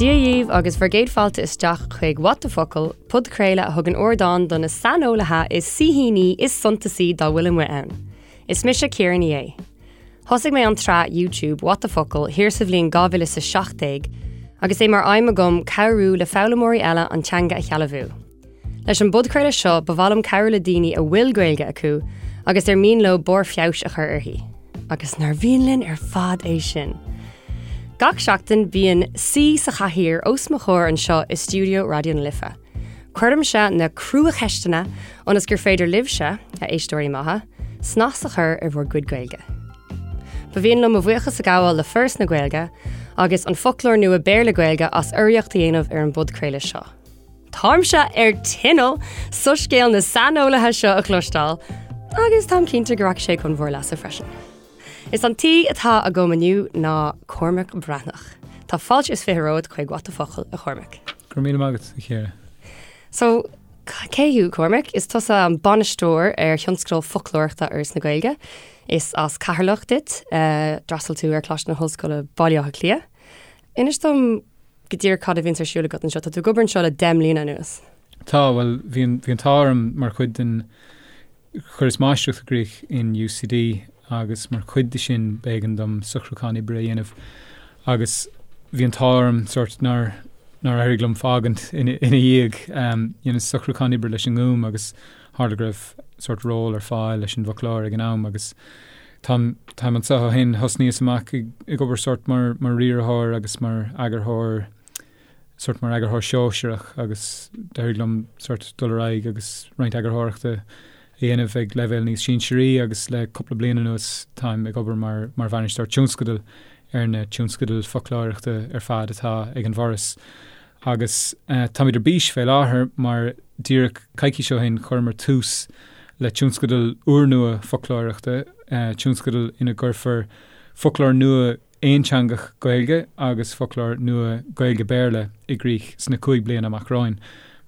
Dia dhaoibh agus bhur gcéad fáilte isteach chuig What the Focal, podchraoladh a thugann ardán do na saineolaithe is saoithíní is suntasaí dá bhfuil amuigh ann. Is mise Ciara Ní É. Thosaigh mé an tsraith YouTube What the Focal thiar sa bhliain 2017 agus é mar aidhm agam cabhrú le foghlaimeoirí eile an teanga a shealbhú. Leis an bpodchraoladh seo ba mhaith liom cabhrú le daoine a bhfuil Gaeilge acu agus ar mian leo barr feabhais a chur uirthi. Agus nár mhian linn ar fad é sin? Gach seachtain bíonn saoi sa chathaoir os mo chomhair anseo i stiúideo Raidió na Life. Cuirimse na cruacheisteanna ionas gur féidir libhse, a éisteoirí maithe, snas a chur ar bhur gcuid Gaeilge. Ba mhian liom mo bhuíochas a ghabháil le Foras na Gaeilge agus an Foclóir Nua Béarla-Gaeilge as urraíocht a dhéanamh ar an bpodchraoladh seo. Táimse ar tinneall soiscéal na saineolaithe seo a chloisteáil agus táim cinnte go rachaidh sé chun bhur leasa freisin. Is an t-aoi atá agam inniu ná Cormac Breathnach. Tá fáilte is 20 romhat chuig What the Focal, a Chormaic. Go raibh míle maith agat, a Chiara. So, cé thú, Cormac? Is tusa an bainisteoir ar thionscadal foclóireachta Fhoras na Gaeilge. Is as Ceatharlach duit. D'fhreastail tú ar Choláiste na hOllscoile Baile Átha Cliath. Inis dom go díreach cad a bhíonns ar siúl agat anseo. Tá tú ag obair anseo le 10 mbliana anuas. Tá, bhuel, bhí an, bhí an t-ádh orm mar chuid den, chuireas máistreacht i gcrích in UCD agus mar chuid de sin b'éigean dom socrúchán oibre a dhéanamh agus bhí an t-ádh orm sórt nár, nár éirigh liom fágaint ina, ina dhiaidh. Dheineas socrúchán oibre leis an nGúm agus tharla go raibh sórt ról ar fáil leis an bhfoclóir ag an am agus Táim, táim anseo ó shin. Thosnaíos amach ag, ag obair sórt mar, mar riarthóir agus mar eagarthóir, sórt mar eagarthóir sóisearach agus d'éirigh liom sórt dul ar aghaidh agus roinnt eagarthóireachta a dhéanamh ag leibhéal níos sinsearaí agus le cúpla bliain anuas táim ag obair mar, mar bhainisteoir tionscadail ar na tionscadail foclóireachta ar fad atá ag an bhForas. Agus táimid ar bís fé láthair mar díreach coicís ó shin chuireamar tús le tionscadal úrnua foclóireachta, tionscadal ina gcuirfear foclóir nua aonteangach Gaeilge agus foclóir nua Gaeilge-Béarla i gcrích sna 5 bliana amach romhainn.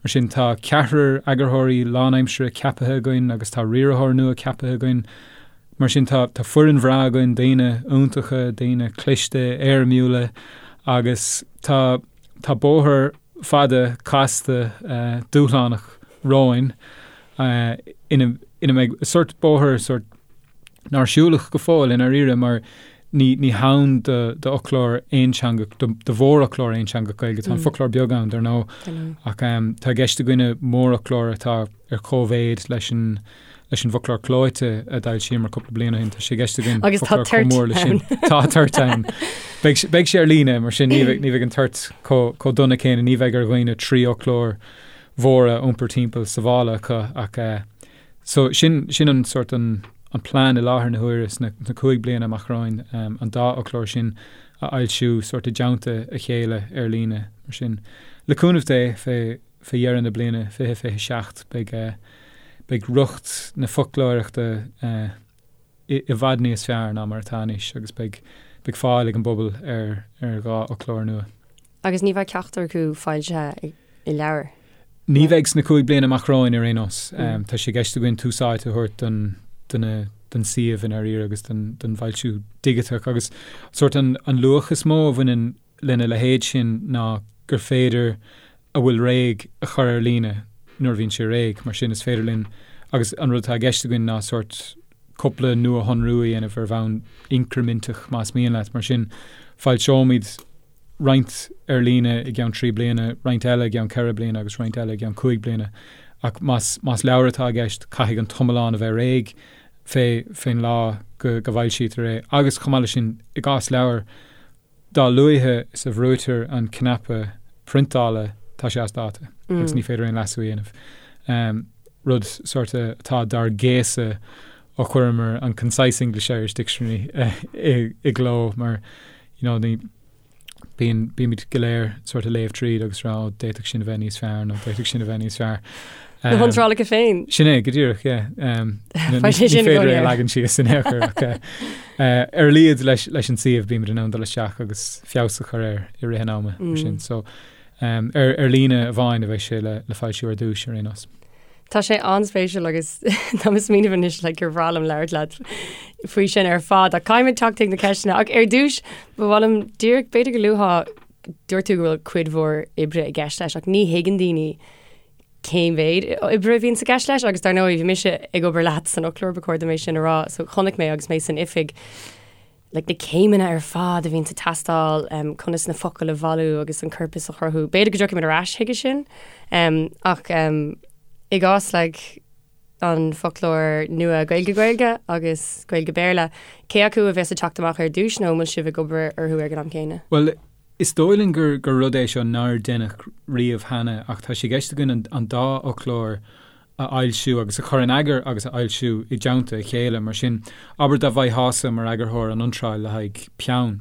Mar sin tá ceathrar eagarthóirí lánaimseartha ceapaithe againn agus tá riarthóir nua ceapaithe againn. Mar sin tá foireann bhreá againn, daoine iontacha, daoine cliste, éirimiúla agus tá Tá bóthar fada, casta, dúshlánach romhainn ina ina mbeidh sórt bóthar sórt nár siúladh go fóill i ndáiríre mar ní ní hann do d'fhoclóir aonteangach, do do mhórfhoclóir aonteangach Gaeilge. Tá an foclóir beag ann, dar ndóigh, ach tá i gceist againne mórfhoclóir atá ar cóimhéid leis an leis an bhfoclóir clóite a d'fhoilsíomar cúpla bliain ó shin. Tá sé i gceist againn Agus tá foclóir chomh toirt mór leis sin. ann. Tá toirt ann. Beidh sé- beidh sé ar líne, mar sin ní bheidh ní bheidh an toirt chomh chomh dona céanna, ní bheidh ar dhaoine 3 fhoclóir mhóra a iompar timpeall sa mhála acu ach eh, so sin sin an sórt an an plean i láthair na huaire sna sna 5 bliana amach romhainn, em, an dá fhoclóir sin a fhoilsiú sórt i dteannta a chéile ar líne, mar sin. Le cúnamh Dé fé fé dheireadh na bliana 2027 beidh beidh riocht na foclóireachta i i bhfad níos fearr ná mar atá anois agus beidh beidh fáil ag an bpobal ar ar dhá fhoclóir nua. Agus ní bheidh ceachtar acu foilsithe i leabhar? Ní bheidh sna 5 bliana amach romhainn ar aon nós. Tá sé i gceist againn tús áite a thabhairt don do na don suíomh i ndáiríre agus don don bhfoilsiú digiteach agus sórt an an luach is mó a bhaineann lena leithéid sin ná gur féidir a bhfuil réidh a chur ar líne nuair a bhíonn sé réidh. Mar sin, is féidir linn, agus an rud atá i gceist againn ná sórt cúpla nuashonrú a dhéanamh ar bhonn incriminteach, más mian leat. Mar sin, foilseoimid roinnt ar líne i gceann 3 bliana, roinnt eile i gceann 4 bliana agus roinnt eile i gceann 5 bliana. Ach más, más leabhar atá i gceist, caithfidh an t-iomlán a bheith réidh fé, fén lá go, go bhfoilsítear é. Agus chomh maith leis sin, i gcás leabhair, Dá luaithe is a bhrúitear an cnaipe priontála tá sé as dáta agus ní féidir aon leasú a dhéanamh. Rud sórt atá dár gcéasadh ó chuireamar an Concise English-Irish Dictionary i gcló mar you know ní bíonn bímid go léir sórt ag léamh tríd agus rá ó d'fhéadfadh sin a bheith níos fearr nó d'fhéadfadh sin a bheith níos fearr. Na hiontrálacha féin. Sin é, go díreach, yeah. Ní féidir é a leagan síos in aon chor ach ar a laghad leis an suíomh bímid in ann dul isteach agus feabhas a chur air i rith an ama mar sin. So ar líne amháin a bheidh sé le foilsiú ar dtús ar aon nós. Tá sé an-spéisiúil agus tá mé ag smaoineamh anois le gur bhreá liom labhairt leat faoi sin ar fad ach caithfimid teacht chuig na ceisteanna ach ar dtús ba mhaith liom díreach b'fhéidir go luafá. Dúirt tú go bhfuil cuid mhór oibre i gceist leis ach ní thuigeann daoine cén mhéid oibre a bhíonn i gceist leis agus dar ndóigh bhí mise ag obair leat san fhoclóir ba chóir dom é sin a rá so chonaic mé agus mé san oifig like, na céimeanna ar fad a bhíonn ag teastáil um, conas na focail a bhailiú agus an corpas a chruthú. B'fhéidir go dtiocfaimid ar ais chuige sin um, ach um, i gcás like, an foclóir nua Gaeilge-Gaeilge agus Gaeilge-Béarla, cé acu a bheas ag teacht amach ar dtús nó an bhfuil sibh ag obair orthu ag an am céanna? Bhuel, is dóigh linn gur gur rud é seo nár deineadh riamh cheana ach tá sé i gceist againn an an dá fhoclóir a fhoilsiú agus a chur in eagar agus a fhoilsiú i dteannta a chéile. Mar sin, abair dá bhfaighteása mar eagarthóir an iontráil le haghaidh peann.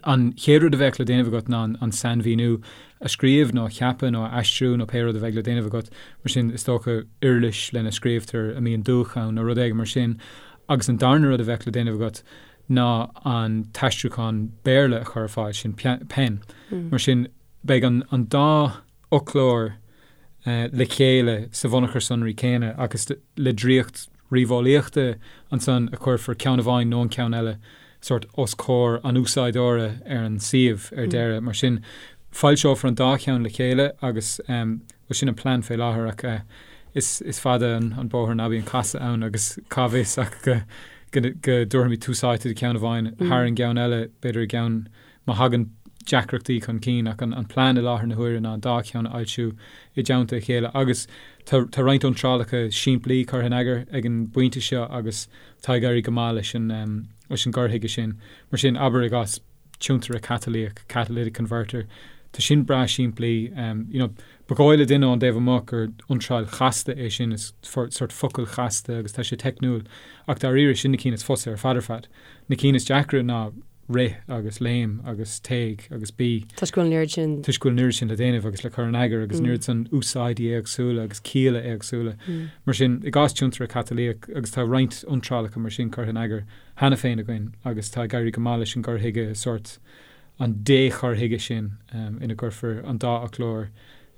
An chéad rud a bheadh le déanamh agat ná an sainmhíniú a scríobh nó a cheapadh nó a aistriú nó pé rud a bheidh le déanamh agat. Mar sin, is dócha, uirlis lena scríobhtar a mbíonn dúch ann nó rud éigin mar sin. Agus an darna rud a bheadh le déanamh agat ná an t-aistriúchán Béarla a chur ar fáil, sin pen. Mar sin, beidh an dá fhoclóir le chéile sa bhunachar sonraí céanna agus le draíocht ríomheolaíochta ansan a chuirfear ceann amháin nó an ceann eile sórt os comhair an úsáideora ar an suíomh ar deireadh. Mar sin, foilseofar an dá cheann le chéile agus, bhuel, sin an plean fé láthair ach is fada an bóthar ná bíonn casadh ann agus cá bhfios ach go go dtabharfaimid tús áite do cheann amháin thar an gceann eile, b'fhéidir i gceann má thagann deacrachtaí chun cinn ach an plean i láthair na huaire ná an dá cheann a fhoilsiú i dteannta a chéile agus tá tá roinnt iontrálacha simplí curtha in eagar ag an bpointe seo agus tá ag éirí go maith leis an leis an gcur chuige sin. Mar sin, abair i gcás tiontaire catalaíoch, catalytic converter, tá sin breá simplí. You know, ba dhóigh le duine ón dtaobh amuigh gur iontráil chasta é sin, is sort focal chasta agus tá sé teicniúil ach dáiríre sin na cinn is fusa ar fad ar fad. Na cinn is deacra ná rith agus léim agus téigh agus bí. Toisc go bhfuil an oiread sin. Toisc go bhfuil an oiread sin le déanamh agus le cur in eagar agus an oiread san úsáidí éagsúla agus cialla éagsúla. Mar sin, i gcás tiontaire catalaíoch, agus tá roinnt iontrálacha mar sin curtha in eagar cheana féin againn agus tá ag éirí go maith leis an gcur chuige, sórt an dé-chur chuige sin ina gcuirfear an dá fhoclóir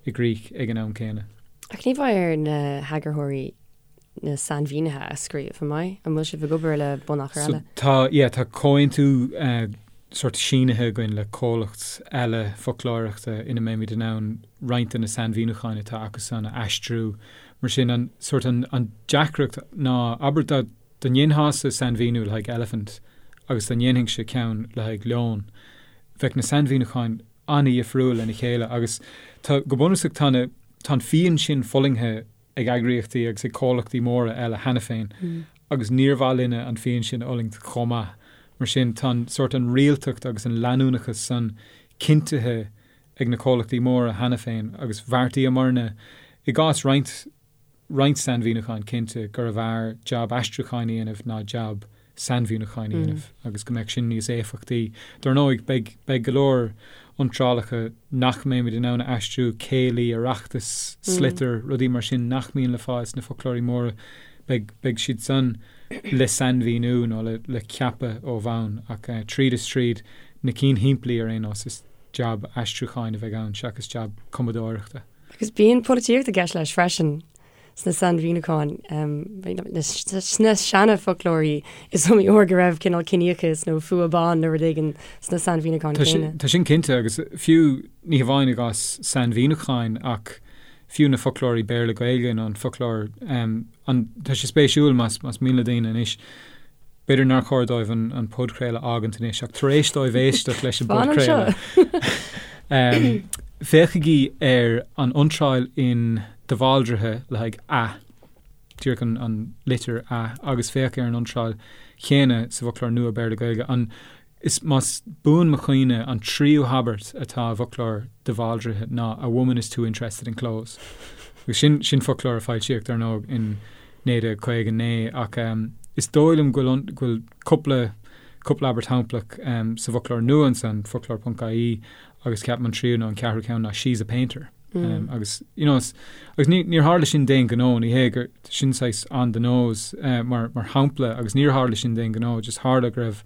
i gcrích ag an am céanna. Ach ní bheidh ar na heagarthóirí na sainmhínithe a scríobh, an mbeidh? An bhfuil sibh ag obair le bunachar eile? So tá, yeah, tá comhaontú sórt sínithe againn le comhlacht eile foclóireachta ina mbeimid in ann roinnt de na sainmhíniúcháin atá acusan a aistriú. Mar sin, an sórt an, an deacracht ná, abair dá, dá ndéanfása sainmhíniú le haghaidh elephant agus dá ndéanfainnse ceann le haghaidh leon, bheadh na sainmhíniúcháin an-dhifriúil lena chéile agus tá, go bunúsach tá na, tá an phian sin fulaingthe ag eagraíochtaí agus ag comhlachtaí móra eile cheana féin agus níor mhaith linne an phian sin a fhulaingt chomh maith. Mar sin, tá an sórt an rialtacht agus an leanúnachas san cinntithe ag na comhlachtaí móra cheana féin agus bheartaíomarna, i gcás roinnt roinnt sainmhíniúcháin cinnte, gurbh fhearr jab aistriúcháin a dhéanamh ná jab sainmhíniúcháin a dhéanamh agus go mbeadh sin níos éifeachtaí. Dar ndóigh, beidh, beidh go leor iontrálacha nach mbeimid in ann a aistriú, céilí, oireachtas, sliotar, rudaí mar sin nach mbíonn le fáil sna foclóirí móra, beidh, beidh siad san le sainmhíniú nó le, le ceapadh ó bhonn ach tríd is tríd, na cinn shimplí ar aon nós, is jab aistriúcháin a bheidh ann seachas jab cumadóireachta. Agus bíonn polaitíocht i gceist leis freisin. sna sainmhíniúcháin, sna seana-fhoclóirí, is iomaí uair go raibh cineál ciníochas nó fuath ban nó rud éigin sna sainmhíniúcháin céanna. Tá sin cinnte, agus fiú, ní hamháin i gcás sainmhíniúcháin ach fiú na foclóirí Béarla-Gaeilge nó an foclóir, an, tá sé spéisiúil más, más mian le daoine anois, b'fhéidir nár chóir dóibh an, an podchraoladh a fhágaint anois ach tar éis dóibh éisteacht leis an bpodchraoladh, féachaigí ar an iontráil in De Bhaldraithe le haghaidh 'a', díreach an litir 'a', agus féach ar an iontráil chéanna sa bhfoclóir nua Béarla-Gaeilge. An, is, más buan mo chuimhne, an tríú habairt atá i bhfoclóir De Bhaldraithe ná 'a woman is too interested in clothes'. Agus sin, sin foclóir a foilsíodh, dar ndóigh, in 1959, ach is dóigh liom go bhfuil, go bhfuil cúpla, cúpla abairt shamplach sa bhfoclóir nua ansan, foclóir ponc ie, agus ceapaim an tríú nó an ceathrú ceann ná 'she's a painter'. Agus, you know, agus ní, níor tharla sin d'aon ghnó, ní hé gur, sin saghas on the nose mar, mar shampla agus níor tharla sin d'aon ghnó, just tharla go raibh,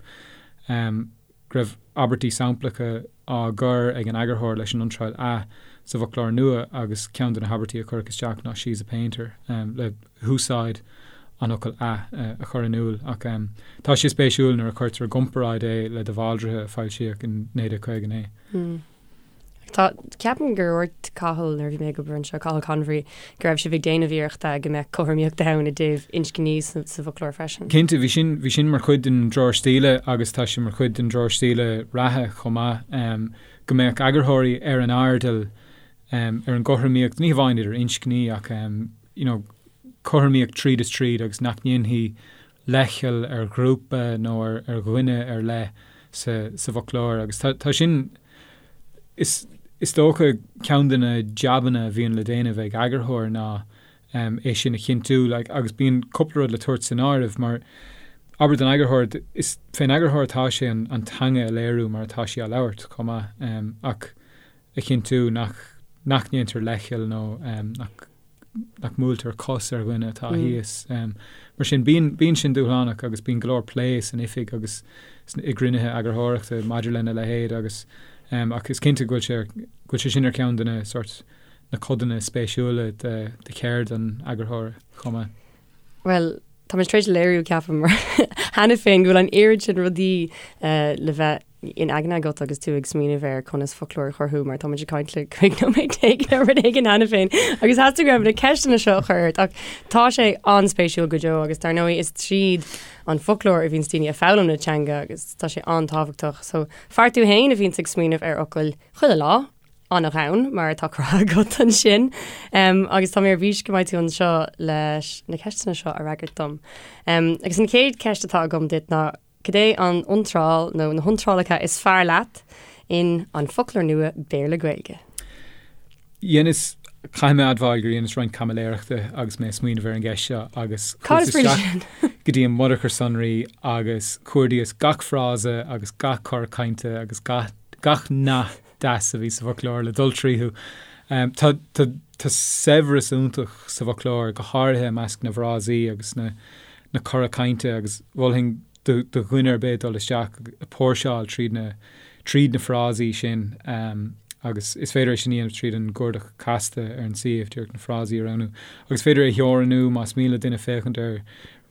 go raibh abairtí samplacha á gcur ag an eagarthóir leis an iontráil 'a' sa bhfoclóir nua agus ceann de na habairtí a cuireadh isteach ná 'she's a painter' le húsáid an fhocail 'a' a chur in iúl. Ach tá sé spéisiúil nuair a chuirtear i gcomparáid é le De Bhaldraithe a foilsíodh in 1959. Tá, ceapaim gur dhúirt Cathal nuair a bhí mé ag obair anseo, Cathal Convery, go raibh sibh ag déanamh iarrachta go mbeadh cothromaíocht ann i dtaobh inscní sa bhfoclóir freisin. Cinnte, bhí sin, bhí sin mar chuid den dtreoir stíle agus tá sé mar chuid den dtreoir stíle reatha chomh maith, go mbeadh eagarthóirí ar an airdeall ar an gcothromaíocht, ní hamháin idir inscní ach you know cothromaíocht tríd is tríd agus nach ndéanfaí leithcheal ar ghrúpa nó ar dhuine ar leith sa bhfoclóir agus tá sin, is dócha, ceann de na jabanna a bhíonn le déanamh ag eagarthóir ná é sin a chinntiú agus bíonn cúpla rud le tabhairt san áireamh mar, abair don eagarthóir, is fén eagarthóir atá sé an teanga a léiriú mar atá sí á labhairt chomh maith ach a chinntiú nach nach ndéantar leithcheal nó nach nach mbuailtear cos ar dhuine atá thíos. Mar sin, bíonn bíonn sin dúshlánach agus bíonn go leor plé san oifig agus i gcruinnithe eagarthóireachta maidir lena leithéid agus ach is cinnte go bhfuil sé go bhfuil sé sin ar cheann de na sort na codanna spéisiúla de de cheird an eagarthóra chomh maith. Bhuel, tá muid tar éis léiriú, ceapaim, cheana féin go bhfuil an oiread sin rudaí le bheith in aigne agat agus tú ag smaoineamh ar conas foclóir a chruthú mar tá muid ag caint le 15 nóiméad nó rud éigin cheana féin agus theastaigh uaim na ceisteanna seo a chur ort ach tá sé an-spéisiúil go deo agus dar ndóigh is tríd an foclóir a bhíonns daoine ag foghlaim na teanga agus tá sé an-tábhachtach. So fear tú féin a bhíonns ag smaoineamh ar fhocail chuile lá, an-ghann mar atá cruthaithe agat ansin. Agus tá mé ar bís go mbeidh tú anseo leis na ceisteanna seo a fhreagairt dom. Agus an chéad cheist atá agam duit ná cad é an iontráil nó na hiontrálacha is fearr leat in An Foclóir Nua Béarla-Gaeilge? Dheineas, caithfidh mé a admháil gur dheineas roinnt caimiléireachta agus mé ag smaoineamh ar an gceist seo agus chuas isteach go dtí an mbunachar sonraí agus chuardaíos gach frása agus gach cor cainte agus gach nath deas a bhí sa bhfoclóir le dul tríothu. Tá tá saibhreas iontach sa bhfoclóir, go háirithe i measc na bhfrásaí agus na na cora cainte agus mholfainn do do dhuine ar bith dul isteach ag póirseáil tríd na tríd na frásaí sin agus is féidir é sin a dhéanamh tríd an gcuardach casta ar an suíomh, díreach na frásaí a roghnú. Agus is féidir é a theorannú más mian le duine féachaint ar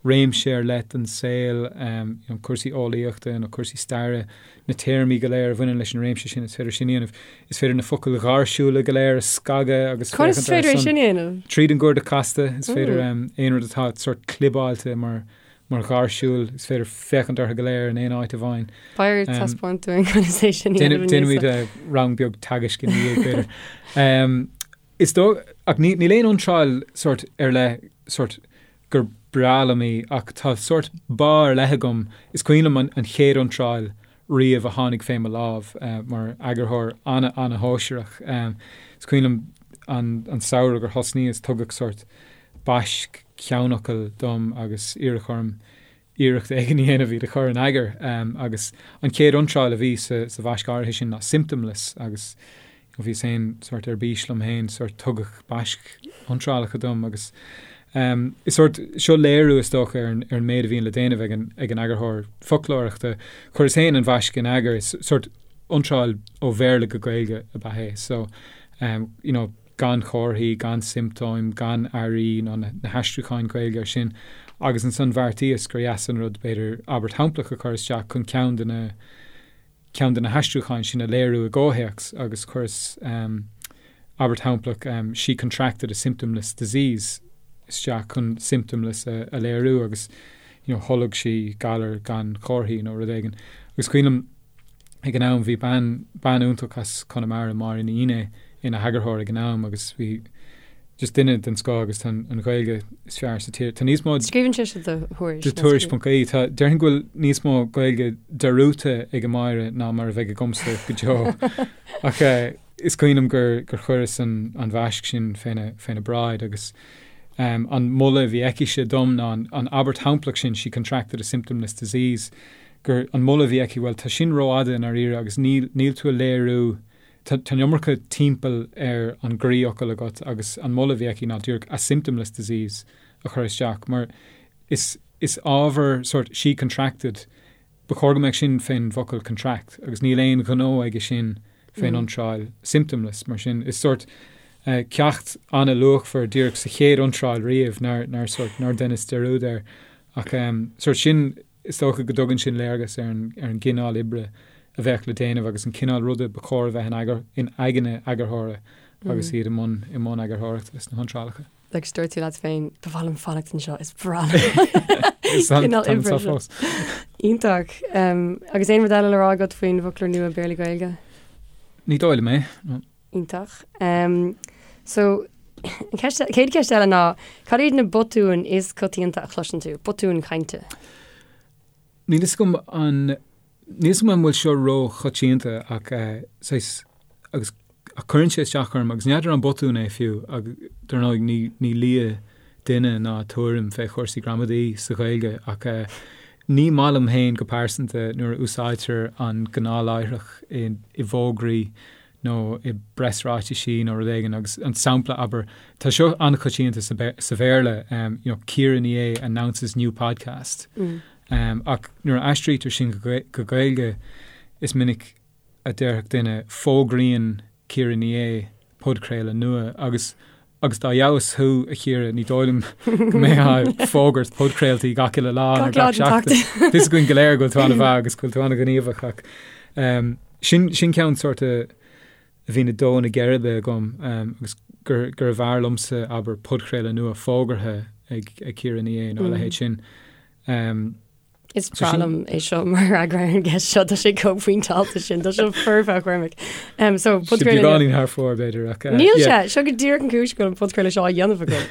réimse ar leith den saol, you know, cúrsaí eolaíochta nó cúrsaí staire, na téarmaí go léir a bhaineann leis an réimse sin, is féidir sin a dhéanamh. Is féidir na focail ghairsiúla go léir a scagadh agus féachaint orthu. Conas is féidir é sin a dhéanamh? Tríd an gcuardach casta, is féidir aon rud atá sort clibeáilte mar mar ghairsiúil, is féidir féachaint orthu go léir in aon áit amháin. Beidh ort taispeáint dúinn conas é sin a dhéanamh. Déanfaimid rang beag teagaisc ina dhiaidh, b'fhéidir. Is dóigh, ach níl aon iontráil sort ar leith sort gur breá liom í ach tá sórt bá ar leith agam, is cuimhin liom an chéad iontráil riamh a tháinig fé mo lámh mar eagarthóir an-an-shóisearach. Is cuimhin liom an samhradh gur thosnaíos, tugadh sórt baisc ceannfhocal dom agus iarradh orm iarracht éigin a dhéanamh iad a chur in eagar agus an chéad iontráil a bhí sa bhaisc áirithe sin ná symptomless agus bhíos féin sórt ar bís liom féin, sórt tugadh baisc iontrálacha dom agus is sórt seo léiriú is dócha ar an ar an méid a bhíonn le déanamh ag an ag an eagarthóir foclóireachta. Chuireas féin an bhaisc in eagar, is sórt iontráil ó Bhéarla go Gaeilge ab ea é so you know gan chomharthaí, gan siomptóim, gan airí ná na haistriúcháin Ghaeilge air sin agus ansan bheartaíos gur dheas an rud b'fhéidir abairt shamplach a chur isteach chun ceann de na ceann de na haistriúcháin sin a léiriú i gcomhthéacs agus chuireas abairt shamplach she contracted a symptomless disease isteach chun symptomless a léiriú agus you know tholg sí galar gan chomharthaí nó rud éigin agus cuimhin liom ag an am bhí bean, bean iontach as Conamara, Máire Ní Fhinné, ina heagarthóir ag an am agus bhí just duine den scoth agus tá an Ghaeilge is fearr sa tír. Tá níos mó. Scríobhann sise do Thuairisc. Do Tuairisc.ie. Tá, déarfainn go bhfuil níos mó Gaeilge dearúdta ag Máire ná mar a bheidh agamsa go deo. Ach is cuimhin liom gur, gur chuireas an, an bhaisc sin féna, féna bráid agus um, an moladh a bhí aicise dom ná an, an abairt shamplach sin, she contracted a symptomless disease, gur an moladh a bhí aici, bhuel, tá sin rófhada i ndáiríre agus níl, níl tú a léiriú, tá, tá an iomarca timpeall ar an gcroífhocal agat agus an moladh a bhí aici ná díreach a symptomless disease a chur isteach mar is, is ábhar sort she contracted, ba chóir go mbeadh sin fén bhfocal contract agus níl aon ghnó aige sin fén iontráil symptomless mar sin is sort ceacht an-luachmhar díreach sa chéad iontráil riamh nár, nár sort, nár dheineas dearúd air ach sort sin Is dócha go dtugann sin léargas ar an gcineál oibre a bheadh le déanamh agus an cineál ruda ba chóir a bheith in eagar, in aigne eagarthóra agus iad i mbun, i mbun eagarthóireachta sna hiontrálacha. Agus dúirt tú leat féin, ba mhaith liom fanacht anseo, is breá liom. Is an cineál oibre seo. Iontach. Agus aon rud eile le rá agat faoin bhfoclóir nua Béarla-Gaeilge? Ní dóigh liom é. Iontach. So, an ceist, chéad cheist eile ná, cad iad na botúin is coitianta a chloiseann tú? Botúin chainte? Níl fhios agam an, níl fhios agam an bhfuil seo ró-choitianta ach saghas, agus ach cuireann sé isteach orm agus n'fheadar an botún é fiú ach dar ndóigh ní, ní lia duine ná tuairim fé chúrsaí gramadaí sa Ghaeilge ach ní maith liom féin go pearsanta nuair a úsáidtear an gnáthláithreach i, i bhfógraí nó i bpreasráitisí nó rud éigin agus an sampla, abair, tá seo an-choitianta sa sa Bhéarla, you know, Ciara Ní É announces new podcast. Ach nuair a aistrítear sin go go Gaeilge is minic a déarfadh duine fógraíonn Ciara Ní É podchraoladh nua agus agus dá fheabhas thú, a Chiara, ní dóigh liom go mbeifeá ag fógairt podchraoltaí gach uile lá nó gach seachtain. Tá fhios againn go léir go bhfuil tú an-mhaith agus go bhfuil tú an-ghníomhach ach sin, sin ceann sórt a bhíonn ag dó na geirbe agam agus gur, gurbh fhearr liomsa, abair, podchraoladh nua fógartha ag, ag Ciara Ní É nó a leithéid sin. Is breá liom é seo mar fhreagra ar an gceist seo, tá sé chomh pointeáilte sin, tá sé foirfe a Chormaic. So, podchraoladh Beagáinín thar fóir b'fhéidir ach Níl sé, seo go díreach an cúis go bhfuil an podchraoladh seo á dhéanamh agam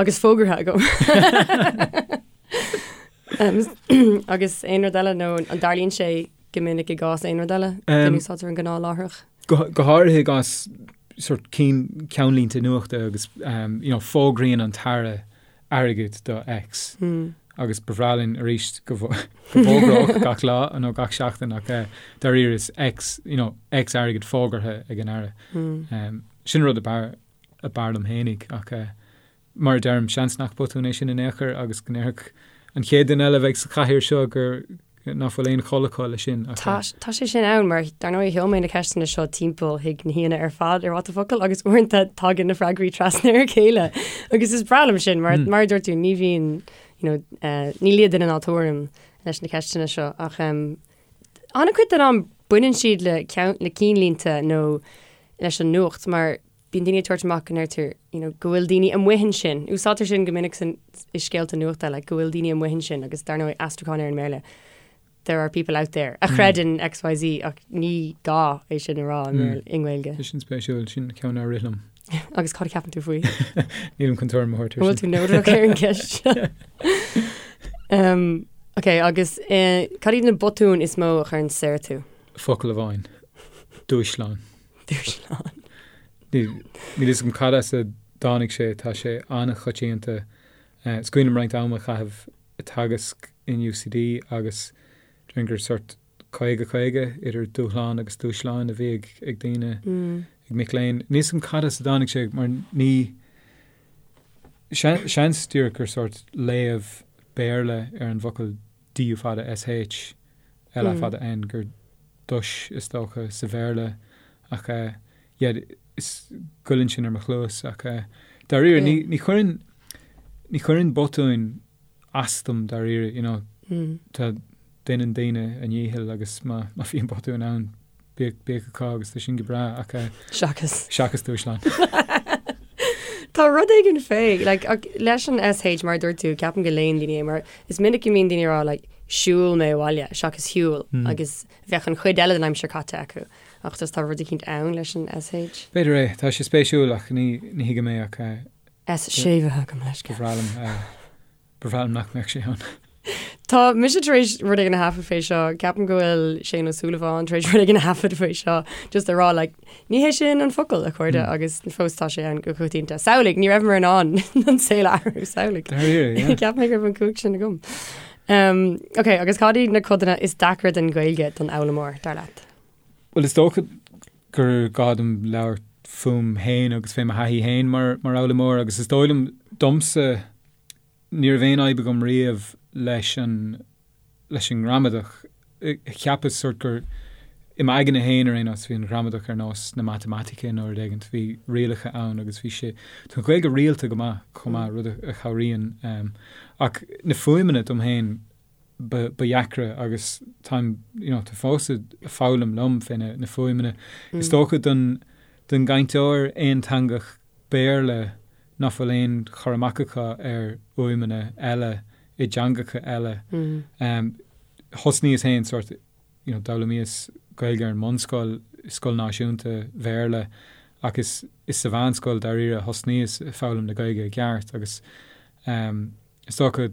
agus fógartha agam. Agus aon rud eile nó an dtarlaíonn sé go minic i gcás aon rud eile go n-úsáidtear an gnáthláithreach? Go háirithe i gcás sort cinn ceannlínte nuachta agus you know, fógraíonn an tAire airgead do X agus ba bhreá linn arís go bhfógródh gach lá nó gach seachtain ach dáiríre is X, you know, X airgead fógartha ag an Aire. Sin rud ab fhearr ab fhearr liom fhéinig ach mar a deirim, seans nach botún é sin in aon chor agus go ndéarfadh an chéad duine eile a bheidh sa chathaoir seo gur nach bhfuil aon chol acu leis sin ach. Tá, tá sé sin ann mar dar ndóigh sheol mé na ceisteanna seo timpeall chuig na haíonna ar fad ar What the Focal agus uaireanta tagann na freagraí trasna ar a chéile agus is breá liom sin mar mar a dúirt tú ní bhíonn you know, eh, ní lia duine ná tuairim leis na ceisteanna seo ach um, an-chuid den am baineann siad le ceann, le cinnlínte nó leis an nuacht mar Bíonn daoine ag tabhairt amach go ndeirtear you know go bhfuil daoine amuigh ansin. Úsáidtear sin go minic san, i scéalta nuachta like go bhfuil daoine amuigh ansin agus dar ndóigh aistriúchán ar an mBéarla there are people out there a chreideann XYZ ach ní gá é sin a rá i mBéarla, i nGaeilge. Tá sin spéisiúil, sin ceann nár rith liom. Agus cad a cheapann tú faoi? Nílim chun tuairim a thabhairt air sin. An bhfuil tú neodrach ar an gceist seo? Um, ok, agus eh, cad iad na botúin is mó a chuireann soir tú? Focal amháin. Dúshlán. Dúshlán. Níl fhios agam cad as a dtáinig sé, tá sé an-choitianta. Is cuimhin liom roinnt ama a chaitheamh ag teagasc in UCD agus déarfainn gur sort 50, 50 idir dúshlán agus dúshláin a bhí ag daoine, ag mic léinn. Níl fhios agam cad as a dtáinig sé mar ní, seans díreach gur sort léamh Béarla ar an bhfocal D U fada S H L A fada N gur dush is dócha sa Bhéarla ach yeah is goilleann sin ar mo chluas ach dáiríre ní ní chuireann ní chuireann botúin as dom dáiríre you know tá déanann daoine a ndícheall agus má má bhíonn botúin ann Bíodh, bíodh acu agus tá sin go breá ach eh. Seachas. Seachas dúshlán. Tá rud éigin fé, like, ach leis an SH mar a dúirt tú, ceapaim go léann daoine é mar is minic go mbíonn daoine ag rá like siúil mé abhaile seachas shiúil agus bheadh an chuid eile den aimsir caite acu ach just tá rud eicínt ann leis an SH. B'fhéidir é, tá sé spéisiúil ach ní, ní thuigim é ach eh. S séimhithe agam leis. Ba bhreá liom eh. Ba bhreá liom nach mbeadh sé ann. Tá mise tar éis rud éigin a thaifead fé seo, ceapaim go bhfuil Shane Ó Súilleabháin tar éis rud éigin a thaifead faoi seo, just a rá like, ní hé sin an focal, a chairde, agus fós tá sé ann go coitianta. Samhlaigh, ní rabhamar in ann an saol a athrú, samhlaigh. Dáiríre, yeah. Cheap mé go raibh an cumhacht sin agam. Um, ok, agus cad iad na codanna is deacra den Ghaeilge don fhoghlaimeoir, dar leat? Bhuel, is dócha gur gá dom labhairt fúm féin agus fé mo thaithí féin mar, mar fhoghlaimeoir agus is dóigh liom domsa, Ní raibh aon fhadhb agam riamh leis an, leis an ngramadach. Cheapas sort gur, i m'aigne féin ar aon nós, bhí an ghramadach ar nós na matamaitice nó rud éigint, bhí rialacha ann agus bhí sé, tá an Ghaeilge rialta go maith chomh maith, rud a chabhraíonn. Ach na fuaimeanna dom féin. ba dheacra agus táim, you know, tá fós ag foghlaim liom fé na fuaimeanna. Is dócha don don gcainteoir aonteangach Béarla nach bhfuil aon chur amach acu ar fhuaimeanna eile i dteangacha eile. Thosnaíos féin sort, you know, d'fhoghlaimíos Gaeilge ar an mbunscoil, scoil náisiúnta Bhéarla ach is is sa mheánscoil dáiríre a thosnaíos ag foghlaim na Gaeilge i gceart agus is dócha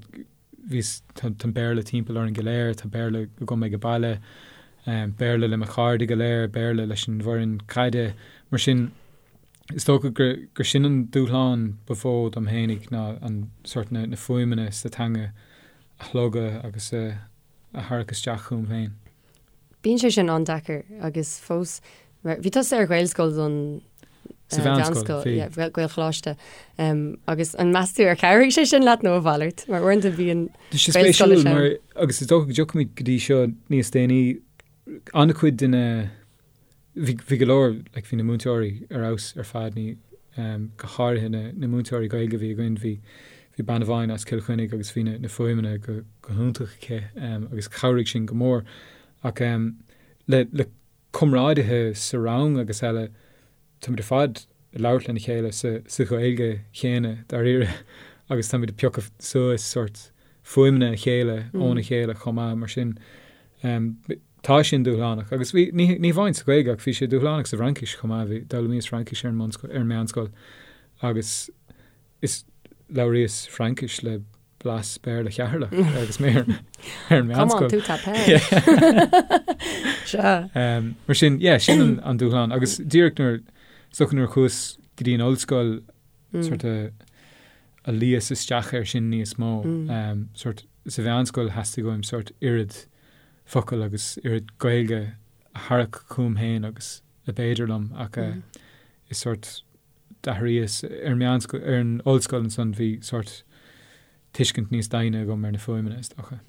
bhíos, tá an Béarla timpeall orainn go léir, tá Béarla agam ag baile, Béarla le mo chairde go léir, Béarla leis an bhfoireann caide, mar sin is dócha gur, gur sin an dúshlán ba mhó dom fhéinig ná an sort na, na fuaimeanna sa teanga a shlogadh agus a, a tharrac isteach chugam féin. Bíonn sé sin an-deacair agus fós, bhí tusa ar Ghaelscoil don Sa mheánscoil, bhí. yeah, Gaelcholáiste. Agus an meas tú ar chabhraigh sé sin leat nó a mhalairt? Mar uaireanta bíonn Tá sé spéisiúil mar, agus is dócha go dtiocfaimid go dtí seo níos déanaí, an-chuid de na, bhí, bhí go leor, like, bhí na múinteoirí ar fheabhas ar fad, ní, go háirithe na, na múinteoirí Gaeilge a bhí againn, bhí, bhí bean amháin as Cill Chainnigh agus bhí na, na fuaimeanna go, go hiontach aici, agus chabhraigh sin go mór. Ach le, le comrádaithe sa rang agus eile, táimid ar fad ag labhairt lena chéile sa, sa Ghaeilge chéanna, dáiríre, agus táimid ag piocadh suas sórt fuaimeanna a chéile óna chéile chomh maith, mar sin tá sin dúshlánach. Agus bhí, ní, ní hamháin sa Ghaeilge ach bhí sé dúshlánach sa bhFraincis chomh maith, bhí, d'fhoghlaimíos Fraincis ar an mbunscoil, ar an meánscoil agus is labhraíos Fraincis le blas Béarla Cheatharlach agus mé ar an meánscoil. Comment tu t'appelles? Sea. Mar sin, yeah, sin an dúshlán. Agus díreach nuair, is dócha nuair a chuas go dtí an ollscoil, sort of, a luíos isteach air sin níos mó. Sort, sa mheánscoil theastaigh uaim sort oiread focal agus oiread Gaeilge a tharrac chugam féin agus a b'fhéidir liom ach is sort d'athraíos ar an meánscoil, ar an ollscoil ansan bhí sórt tuiscint níos doimhne agam ar na fuaimeanna, is dócha.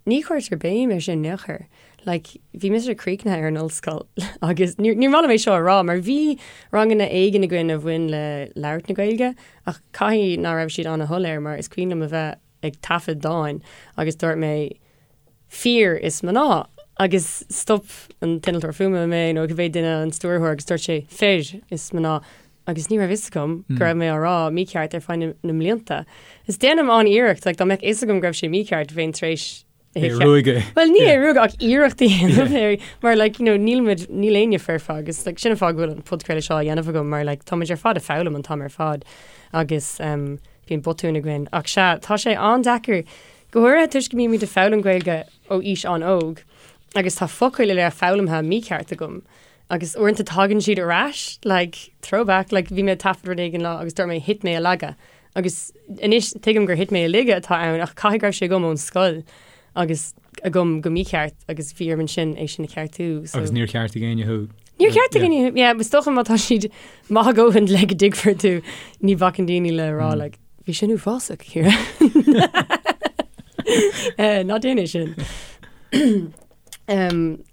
Ní chuirtear béim air sin in aon chor. Like, bhí mise críochnaithe ar an ollscoil agus níor, níor mhaith liom é seo a rá mar bhí ranganna éigin againn a bhain le labhairt na Gaeilge ach caithfidh ná raibh siad ana-shoiléir mar is cuimhin liom a bheith ag taifead dáin agus dúirt mé fir is mná agus stop an t-innealtóir fuaime mé nó cibé duine an stiúrthóir agus dúirt sé fir is mná agus ní raibh fhios agam go raibh mé á rá mícheart ar feadh na mblianta. Is déanaim an-iarracht, like, dá mbeadh fhios agam go raibh sé mícheart bheinn tar éis é a ruaigeadh. Well ní é a ruaigeadh ach iarracht a dhéanamh air mar like, you know, níl muid, níl éinne foirfe agus like, sin an fáth go bhfuil an podchraoladh seo á dhéanamh agam mar like, táimid ar fad ag foghlaim an t-am ar fad agus um, bíonn botúin againn. Ach sea, tá sé an-deacair Go háirithe toisc go mbímid ag foghlaim Gaeilge ó aois an-óg agus tá focail uile foghlamtha mícheart agam agus uaireanta tagann siad ar ais, like, throwback, like bhí mé ag taifead rud éigin lá agus dúirt mé thit mé i laige agus anois tuigim gur thit mé i laige atá ann ach caithfidh go raibh sé agam ón scoil agus agam go mícheart agus bhí orm ansin é sin a cheartú. So. Agus níor cheartaigh éinne thú? Níor cheartaigh éinne thú, yeah, is dócha má tá siad maith a dhóthain le go dtuigfear tú ní bhacann daoine le rá like, Bhí sin uafásach, Ciara. Ná déan é sin.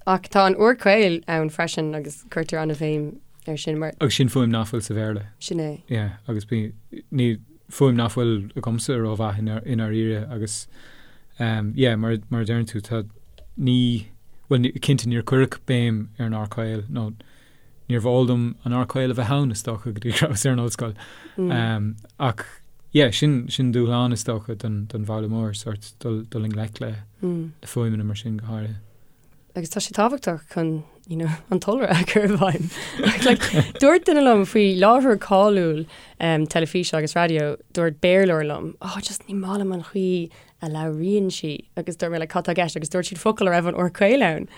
Ach tá an R caol ann freisin agus cuirtear an-bhéim air sin mar. Agus sin fuaim nach bhfuil sa Bhéarla. Sin é. Yeah, agus bí, ní, fuaim nach bhfuil agamsa rómhaith i ndáiríre agus um, yeah, mar, mar a deireann tú, tá, ní, bhuel, ní, cinnte níor cuireadh béim ar an R caol nó Níorbh eol dom an R caol a bheith ann, is dócha, go dtí go rabhas ar an ollscoil. Ach yeah, sin, sin dúshlán, is dócha, don, don bhfoghlaimeoir, sórt dul, dul i ngleic le, le fuaimeanna mar sin go háirithe. Agus tá sé tábhachtach chun, you know, an t-iolra a chur i bhfeidhm. Like, dúirt duine liom faoi láithreoir cáiliúil um, teilifíse agus raidió, dúirt Béarlóir liom, oh, just ní maith liom an chaoi a labhraíonn sí. Agus dúirt mé, like, cad tá i gceist? Agus dúirt siad focal a raibh an R caol ann.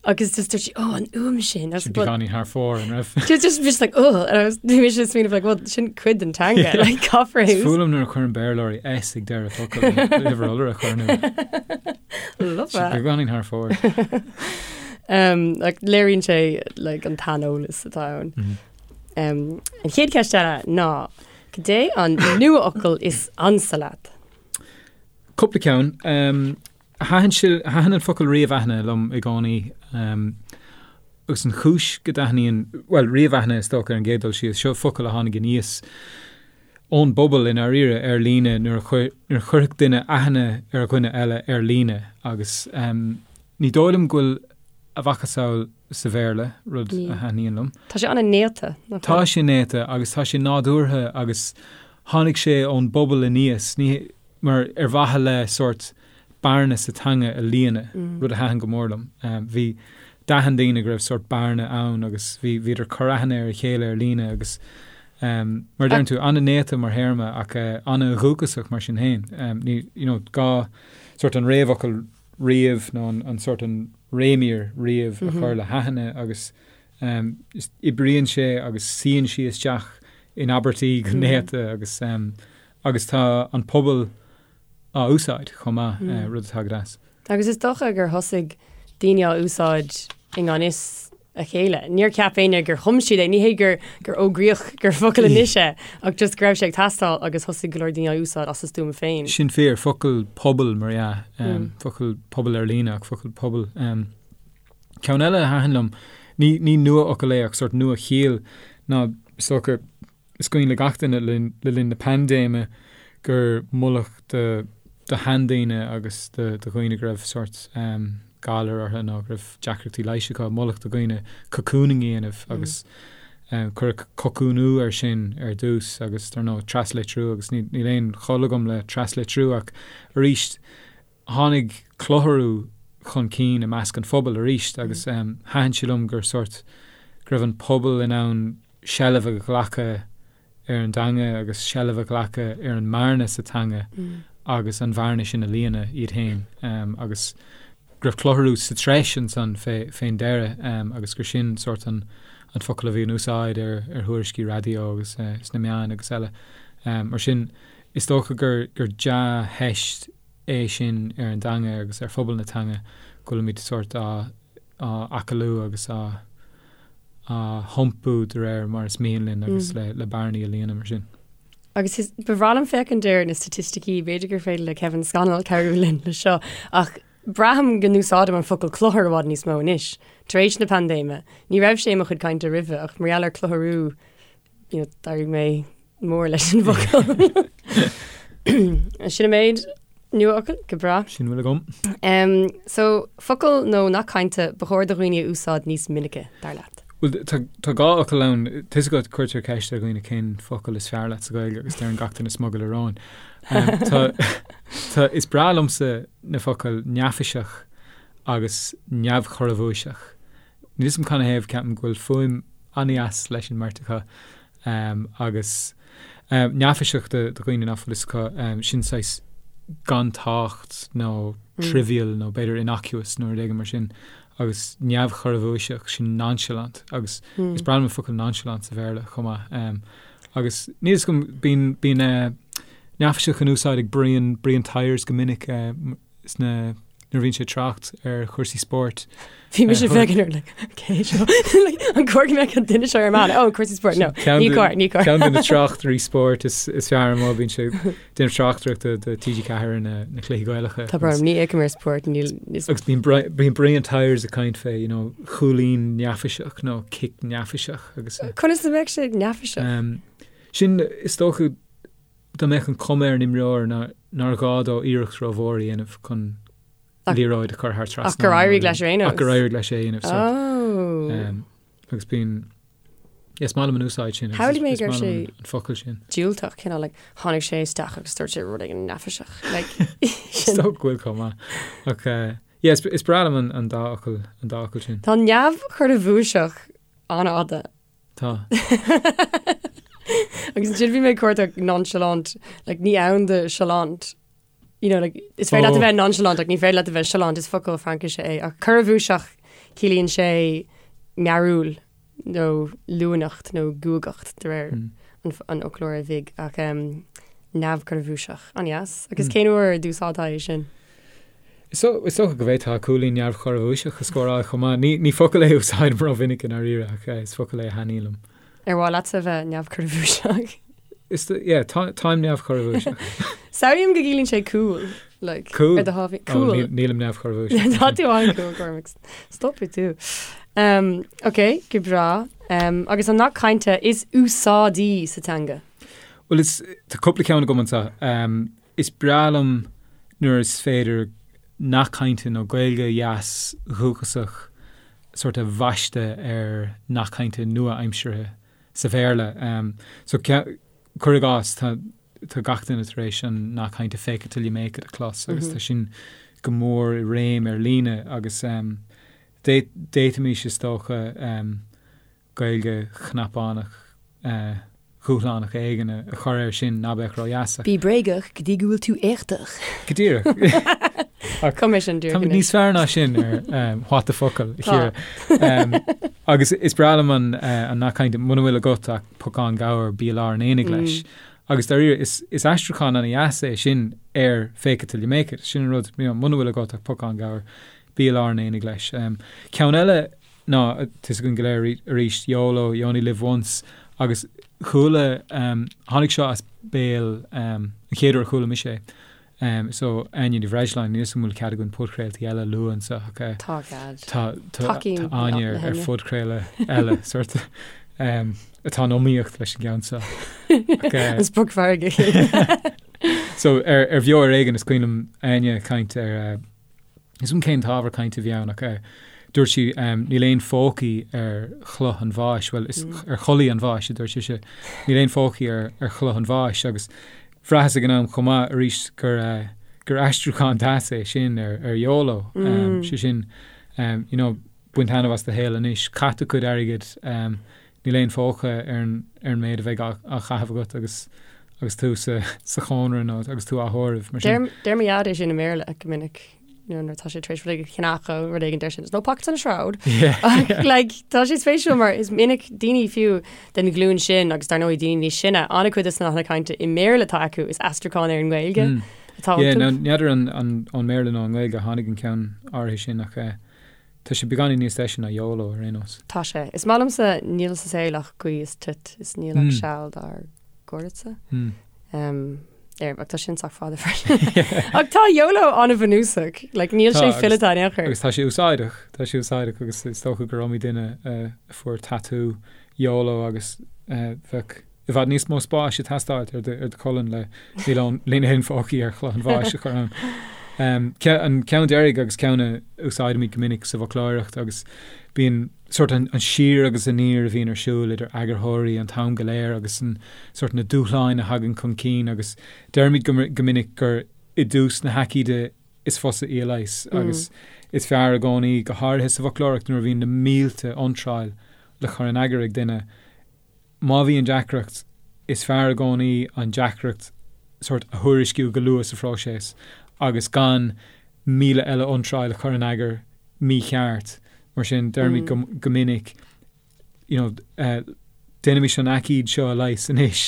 Agus just dúirt sí, oh, an fhuaim sin. Sin beagáinín thar fóir, an raibh? Just, just, just like, oh, and I was, bhí mise ag smaoineamh, like, well, sin cuid den teanga, like, caithfear é. Is fuath liom nuair a chuireann Béarlóirí S ag deireadh focal, uimhir iolra a chur nó. Love that. Beagáinín thar fóir. Um, like, léiríonn sé, like, an t-aineolas atá ann. Mm -hmm. Um, an chéad cheist eile ná, cad é an nuafhocal is ansa leat? Cúpla ceann. Um, Thaitin sé, thaitin an focal ríomhaithne liom i gcónaí agus an chúis go dtaitníonn, bhuel, ríomhaithne is dócha ar an gcéad dul síos, seo focal a tháinig aníos. ón bpobal i ndáiríre ar líne nuair a chuir, nuair a chuirfeadh duine aithne ar dhuine eile ar líne agus ní dóigh liom go bhfuil a mhacasamhail sa Bhéarla, rud a thaitníonn liom. Tá sé an-néata, nach bhfuil? Tá sé néata agus tá sé nádúrtha agus tháinig sé ón bpobal aníos, ní, mar ar mhaithe le sórt bearna sa teanga a líonadh, rud a thaitin go mór liom. Bhí, d'aithin daoine go raibh sórt bearna ann agus bhí, bhíodar ag cur aithne ar a chéile ar líne agus mar a deireann tú, an-néata mar théarma ach an-dhúchasach mar sin féin. Ní, you know, gá sórt an réamhfhocal ríomh nó an sórt an réimír ríomh a chur le haithne agus oibríonn sé agus suíonn sí isteach in abairtí go néata agus agus tá an pobal á úsáid chomh maith, rud atá go deas. Agus is dócha gur thosaigh daoine á úsáid i ngan fhios a chéile. Níor cheap éinne gur chum siad é, ní hé gur gur fhógraíodh gur focal anois é, ach just go raibh sé ag teastáil agus thosaigh go leor daoine á úsáid as a stuaim féin. Sin fíor, focal pobail mar dhea, focal pobail ar líne ach focal pobail. Ceann eile a thaitin liom, ní ní nua-fhocal é ach sórt nua-chiall ná is dócha, Is cuimhin le gach duine le linn na paindéime gur moladh do sheandaoine agus do dhaoine go raibh sórt galar orthu nó go raibh deacrachtaí leighis acu, moladh do dhaoine cocooning a dhéanamh agus cuireadh cocúnú air sin ar dtús agus dar ndóigh traslitriú agus níl aon chol agam le traslitriú ach arís Tháinig clutharú chun cinn i measc an phobail arís agus thaitin sé liom gur sórt, go raibh an pobal in ann seilbh a ghlacadh ar an dteanga agus seilbh a ghlacadh ar an mbearna sa teanga agus an bhearna sin a líonadh iad féin agus go raibh clutharú sa treis ansan fén deireadh agus gur sin sórt an focal a bhí in úsáid ar thuairiscí raidió agus sna meáin agus eile. Mar sin, is dócha gur dea-theist é sin ar an dteanga agus ar phobal na teanga go bhfuilimid sórt á acalú agus á hiompú de réir mar is mian linn agus le bearnaí a líonadh mar sin. Agus is, ba bhreá liom féachaint ar na staitisticí, b'fhéidir gur féidir le Kevin Scannell cabhrú linn le seo, ach braithim go n-úsáidim an focal cluthar i bhfad níos mó anois, tar éis na paindéime. Ní raibh sé i mo chuid cainte roimhe, ach mar gheall ar clutharú, you know, d'éirigh mé mór leis an bhfocal. Sin an méid nuafhocal, go breá. Sin a bhfuil agam. Um, so, focal nó nath cainte ba chóir do dhaoine a úsáid níos minice, dar leat? Bhuel, tá, tá dhá fhocal ann. Tá 'fhios agat, cuirtear ceist ar dhaoine cén focal is fearr leat sa Ghaeilge agus deireann gach duine smugairle róin. Um, tá, tá, is breá liomsa na focail neafaiseach agus neamhchorrabhuaiseach. Níl 'fhios a'm canathaobh, ceapaim go bhfuil fuaim an-dheas leis an mbeirt acu. Agus neafaiseach do dhaoine nach bhfuil 'fhios acu, sin saghas gan tábhacht nó trivial nó b'fhéidir innocuous nó rud éigin mar sin. Agus neamhchorrabhuaiseach, sin nonchalant. Agus is breá liom an focal nonchalant sa Bhéarla chomh maith. Agus níl 'fhios agam, bíonn, bíonn neafaiseach in úsáid ag Brian, Brian Tyers go minic. sna nuair a bhíonn sé ag trácht ar chúrsaí spóirt. Bhí mise ag féachaint air like cé seo like an cóir go mbeadh an duine seo ar meán oh cúrsaí spóirt no ní cóir ní cóir. Ceann de na tráchtairí spóirt is is fearr amuigh bíonn sé ag déanamh tráchtaireachta do TG4 ar na na cluichí Gaelacha. Tá brón orm ní fhéachaim ar spórt níl Agus bíonn bíonn Brian Tyers ag caint fé you know chúilín neafaiseach nó cic neafaiseach agus. Conas a bheadh sé neafaiseach? Sin is dócha dá mbeadh an chuma ar an imreoir nár ghá dó iarracht rómhór a dhéanamh chun liathróid a chur thar trasnán. Ach gur éirigh leis ar aon nós. Ach gur éirigh leis é a dhéanamh. Oh. Agus bíonn, is maith liom an úsáid sin. Shamhlaigh mé go raibh sé an focal sin. Diúltach, cineál like, tháinig sé isteach agus dúirt sé rud éigin neafaiseach. Like, Is dócha go bhfuil chomh maith. Ach eh, yeah, is breá liom an dá fhocal, an dá fhocal sin. Tá neamhchorrabhuaiseach an-fhada. Tá. Agus ansin bhí mé ag cuartach nonchalant, like, ní ann do chalant. You know, like, is féidir leat a bheith nonchalant ach ní féidir leat a bheith chalant, is focal Fraincise é. Ach corrabhuaiseach ciallaíonn sé mearúil nó luaineacht nó guagacht de réir an, an fhoclóra bhig ach um, neamhchorrabhuaiseach. An-dheas. Agus cén uair a d'úsáidfeá é sin? Is dócha go bhféadfá cúilín neamhchorrabhuaiseach a scóráil chomh maith. Ní, ní focal é a úsáidim rómhinic i ndáiríre ach is focal é a thaitníonn liom. Ar mhaith leatsa a bheith neamhchorrabhuaiseach? Is, yeah, tá, táim neamhchorrabhuaiseach. Samhlaím go gciallaíonn sé cool, like, Cool? ar do thábhaí. Oh, Cool. níl, nílim neamhchorrabhuaiseach. Tá tú an-cool, Cormac. Stopfaidh tú. Um, ok, go breá. Um, agus an nath cainte is úsáidí sa teanga? Bhuel is tá cúpla ceann agam anseo. Is breá liom nuair is féidir nath cainte nó Gaeilge dheas dhúchasach sórt a bhaisteadh ar nath cainte nua-aimseartha sa Bhéarla. So cuir i gcás, tá tá gach duine tar éis an nath cainte fake it till you make it a chlos agus tá sin go mór i réim ar líne agus d'fhéadfaimis is dócha Gaeilge chnapánach dhúshlánach éigin a chur air sin ná beadh ródheas. Bí bréagach go dtí go bhfuil tú éachtach. Go díreach. Chum mé sin díreach anois. Níos fearr ná sin ar What the Focal, a Chiara. Agus is breá liom an nath cainte, muna bhfuil agat ach pocán gabhair, bí i lár an aonaigh leis. Agus dáiríre, is aistriúchán ana-dheas é sin ar fake it till you make it. Sin an rud, muna bhfuil agat ach pocán gabhair, bí i lár an aonaigh leis. Ceann eile ná, tá 'fhios againn go léir arís, YOLO, you only live once, agus chuala, tháinig seo as béal, an chéad uair a chuala mise é, so Áine Ní Bhreisleáin, níl 'fhios agam an bhfuil cead againn podchraoltaí eile a lua anseo ach Tá cead. tá tá tá Áine ar ar phodchraoladh eile sort atá in iomaíocht leis an gceann seo. An sprioc mhargaidh. So ar ar Bheo ar Éigean is cuimhin liom Áine ag caint ar Is cuma cén t-ábhar cainte a bhí ann ach dúirt sí níl aon phócaí ar chloch an bháis, bhuel is ar chulaith an bháis a dúirt sise, níl aon phócaí ar ar chloch an bháis agus bhraitheas ag an am chomh maith arís gur gur aistriúchán deas é sin ar ar YOLO, sé sin you know bain taitneamh as do shaol anois, caith do chuid airgid, níl aon phóca ar an ar an méid a bheidh á á chaitheamh agat agus agus tú sa sa chónra nó agus tú á thórramh, mar sin. Deir deir mo dhaid é sin i mBéarla go minic you know, nuair atá sé tar éis rud éigin a cheannach nó rud éigin deir sé there's no pockets on a shroud. Yeah. Ach like tá sé spéisiúil mar is minic daoine fiú den ghlúin sin agus dar ndóigh daoine níos sine an-chuid de na nathanna cainte i mBéarla atá acu is aistriúchán ar an nGaeilge atá Yeah, iontu. now n'fheadar an an ón mBéarla nó an nGaeilge a tháinig an ceann áirithe sin ach eh, Tá sé beagáinín níos deise ná YOLO ar aon nós. Tá sé. Is maith liomsa níl sa saol ach gaoth is toit is níl ach seal dár gcuireadsa. Ar ach tá sin sách fada freisin. Ach tá YOLO an-bhunúsach. Like níl sé fileata in aon chor. Agus tá sé úsáideach. Tá sé úsáideach agus is dócha gur iomaí duine a fuair tatú YOLO agus bheadh i bhfad níos mó spáis ag teastáilt ar do cholainn le níl aon phócaí ar chloch an bháis a chur ann. An ceann deiridh agus ceann a úsáidimid go minic sa bhfoclóireacht agus bíonn sórt an siar agus aniar a bhíonn ar siúl idir eagarthóirí an t-am go léir agus an sórt na dúshláin a thagann chun cinn agus deirimid go minic gur i dtús na haicíde is fusa í a leigheas agus is fearr i gcónaí, go háirithe sa bhfoclóireacht nuair a bhíonn na mílte iontráil le cur in eagar ag duine, Má bhíonn deacracht, is fearr i gcónaí an deacracht sórt a thuairisciú go luath sa phróiseas agus gan 1,000 eile iontráil a chur in eagar mícheart. Mar sin, deirimid go go minic, you know, déanaimis an aicíd seo a leigheas anois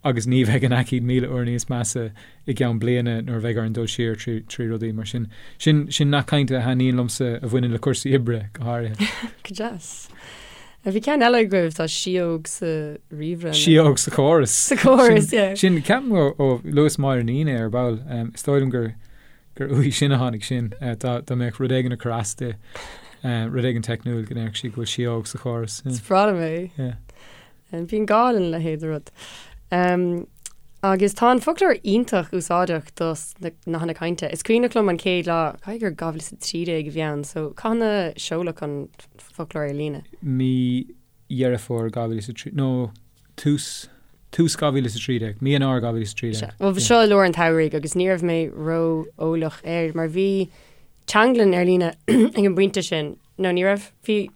agus ní bheidh an aicíd 1,000 uair níos measa i gceann bliana nuair a bheidh orainn dul siar trí rudaí. Mar sin, sin sin nath cainte a thaitníonn liomsa a bhaineann le cúrsaí oibre go háirithe. Go deas. Bhí ceann eile agaibh, tá síóg sa ríomhaire. Síóg sa chóras. Sa chóras, yeah. Sin, ceapaim ó luas Máire Ní é ar ball. Is dóigh liom gur gur uaithi sin a tháinig sin. Dá mbeadh rud éigin ag cur as di, rud éigin teicniúil go ndéarfadh sí go bhfuil síóg sa chóras. Is breá liom é. Yeah. Bíonn gá lena leithéid de rud. Agus tá an foclóir iontach úsáideach dos na nathanna cainte. Is cuimhneach liom an chéad lá, caithfidh gur 2013 a bhí ann, so cathain a seoladh an foclóir ar líne? Mí Dheireadh Fómhair 2003, nó tús, tús 2013, mí Eanáir 2013. Sea. Bhuel, seo i lár an tsamhraidh agus ní raibh mé ró-eolach air mar bhí teanglann ar líne ag an bpointe sin, nó ní raibh, bhí.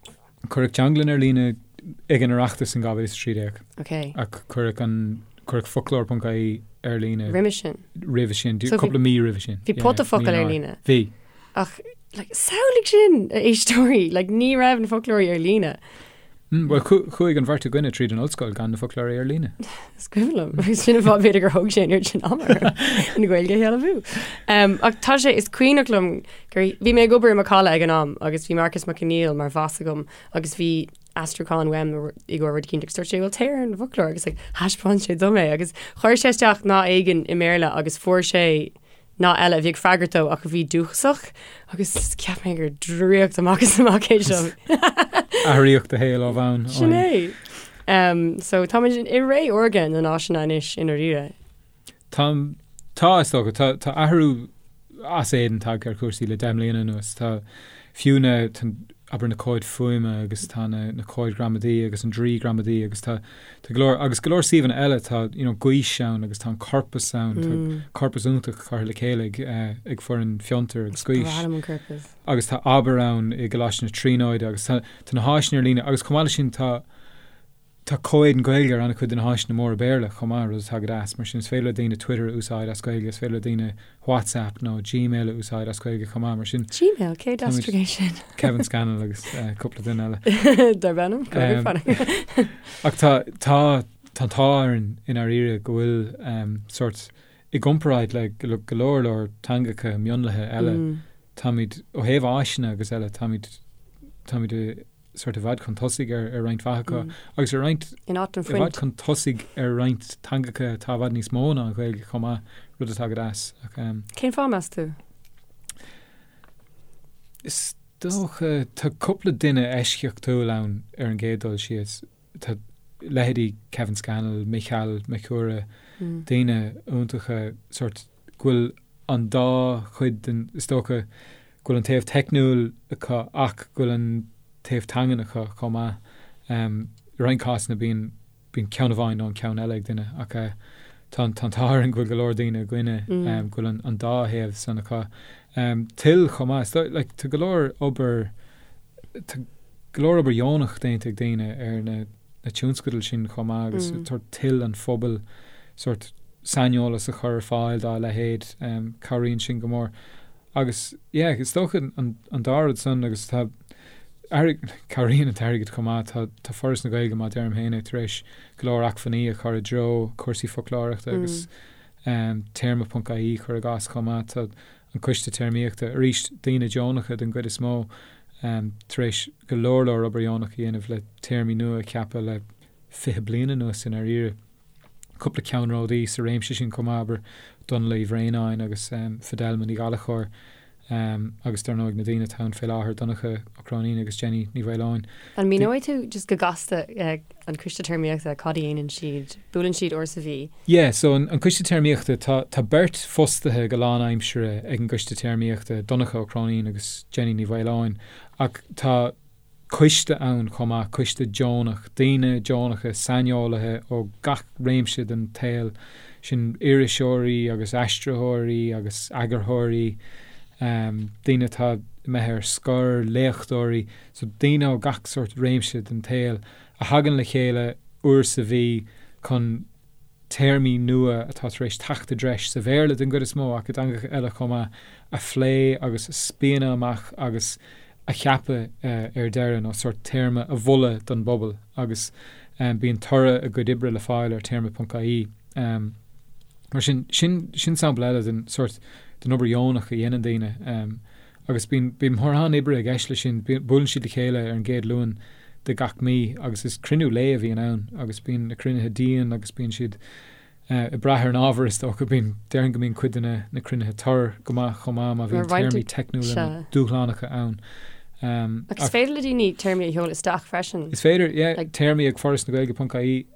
Cuireadh teanglann ar líne ag an Oireachtas in 2013. Ok. Ach cuireadh an, cuireadh foclóir.ie ar líne. Roimhe sin. Roimhe sin, cúpla mí roimhe sin. Bhí pota focal ar líne. Bhí. Ach, like, samhlaigh sin, a éisteoirí, like, ní raibh na foclóirí ar líne. Bhuel, chuaigh an bheirt againne tríd an ollscoil gan na foclóirí ar líne. Is cuimhin liom, agus sin an fáth b'fhéidir gur thóg sé an oiread sin ama orm an Ghaeilge a shealbhú. Ach tá sé, is cuimhneach liom gur, bhí mé ag obair i Macalla ag an am agus bhí Marcus Mac Conghail mar bhoss agam agus bhí aistriúchán uaim i gcomhair rud eicínt agus dúirt sé, bhuel téir ar an bhfoclóir agus like, thaispeáin sé dom é agus chuir sé isteach nath éigin i mBéarla agus fuair sé nath eile a bhí ag freagairt dó ach a bhí dúchasach agus cheap mé gur draíocht amach is amach é seo. Athraíodh do shaol ó bhonn. Sin é. So táimid i ré órga na n-áiseanna anois i ndáiríre. Tá, tá, is dócha. Tá, tá athrú as éadan tagtha ar chúrsaí le 10 mbliana anuas. Tá fiú na, tá, abair na comhaid fuaime agus tá na, na comhaid gramadaí agus an draoi gramadaí agus tá, tá go leor, agus go leor suíomhanna eile, tá, you know, Gaois ann agus tá an corpas ann, tá corpas iontach curtha le chéile ag, eh, ag foireann Fiontar agus Gaois. Is breá liom an corpas. Agus tá Abair ann i gColáiste na Tríonóide agus tá, tá na háiseanna ar líne agus chomh maith leis sin tá, Tá comhéadan Gaeilge ar an-chuid de na háiseanna móra Béarla chomh maith, rud atá go deas. Mar sin, is féidir le daoine Twitter a úsáid as Gaeilge, is féidir le daoine WhatsApp nó Gmail a úsáid as Gaeilge chomh maith. Mar sin, Gmail? Cé a d'aistrigh é sin? Kevin Scannell agus cúpla duine eile. Darb ainm? Ach tá, tá, tá an t-ádh orainn i ndáiríre go bhfuil sórt, i gcomparáid le go leor leor teangacha mionlaithe eile, táimid, ó thaobh áiseanna agus eile, táimid, táimid i, sórt i bhfad chun tosaigh ar roinnt mhaith acu agus ar roinnt In áit an i bhfad chun tosaigh ar roinnt teangacha atá i bhfad níos mó ná an Ghaeilge chomh maith, rud atá go deas. Ach Cén fáth, meas tú? Is dócha, tá cúpla duine eisceachtúil ann ar an gcéad dul síos. Tá leithéidí Kevin Scannell, Mícheál Mac Cumhra, daoine iontacha sórt go bhfuil an dá chuid den, is dócha, go bhfuil an taobh teicniúil acu ach go bhfuil an taobh teangan acu chomh maith. I roinnt cásanna bíonn, bíonn ceann amháin nó an ceann eile ag duine ach tá an, tá an t-ádh orainn go bhfuil go leor daoine againne go bhfuil an, an dá thaobh san acu. Toil chomh maith, is dóigh, like, tá go leor obair, tá go leor obair dheonach déanta ag daoine ar na, na tionscadail sin chomh maith agus sórt toil an phobail sórt saineolas a chur ar fáil dá leithéid, cabhraíonn sin go mór. Agus, yeah, is dócha an, an dá rud san agus tá airg-, cabhraíonn an t-airgead chomh maith, tá, tá Foras na Gaeilge, mar a deirim féin é, tar éis go leor acmhainní a chur i dtreo cúrsaí foclóireachta agus téarma ponc ie cuir i gcás chomh maith, tá an Coiste Téarmaíochta, arís daoine deonacha den gcuid is mó, tar éis go leor leor obair dheonach a dhéanamh le téarmaí nua a cheapadh le 20 bliain anuas i ndáiríre. Cúpla ceannródaí sa réimse sin chomh maith, abair, Dónall Uí Bhraonáin agus Fidelma Ní Ghallchóir agus dar ndóigh na daoine atá ann fé láthair, Donncha Ó Cróinín agus Jenny Ní Mhaoileoin. An míneoidh tú just go gasta an Coiste Téarmaíochta, cad a dhéanann siad? Buaileann siad uair sa mhí? Yeah, so an Coiste Téarmaíochta, tá tá beirt fostaithe go lánaimseartha ag an gCoiste Téarmaíochta, Donncha Ó Cróinín agus Jenny Ní Mhaoileoin, ach tá coiste ann chomh maith, coiste deonach, daoine deonacha, saineolaithe ó gach réimse den tsaol, sin iriseoirí agus aistritheoirí agus eagarthóirí, daoine atá imithe ar scor, léachtóirí, so daoine ó gach sórt réimse den tsaol a thagann le chéile uair sa mhí chun téarmaí nua atá tar éis teacht i dtreis, sa Bhéarla den gcuid is mó ach i dteangacha eile chomh maith, a phlé agus a spíonadh amach agus a cheapadh ar deireadh, nó sórt téarma a mholadh don bpobal agus bíonn toradh a gcuid oibre le fáil ar téarma.ie. Mar sin, sin, sin sampla eile den sórt, den obair dheonach a dhéanann daoine. Agus bíonn, bíonn mórán oibre i gceist leis sin. Buaileann siad le chéile ar an gcéad Luan de gach mí agus is cruinniú lae a bhíonn ann agus bíonn na cruinnithe dian agus bíonn siad ag brath ar an ábhar is dócha. Bíonn, déarfainn go mbíonn cuid de na, na cruinnithe tur go maith chomh maith má bhíonn téarmaí teicniúla nó dúshlánacha ann. Ach is féidir le daoine téarmaí a sheoladh isteach freisin. Is féidir, yeah, téarmaí ag forasnagaeilge.ie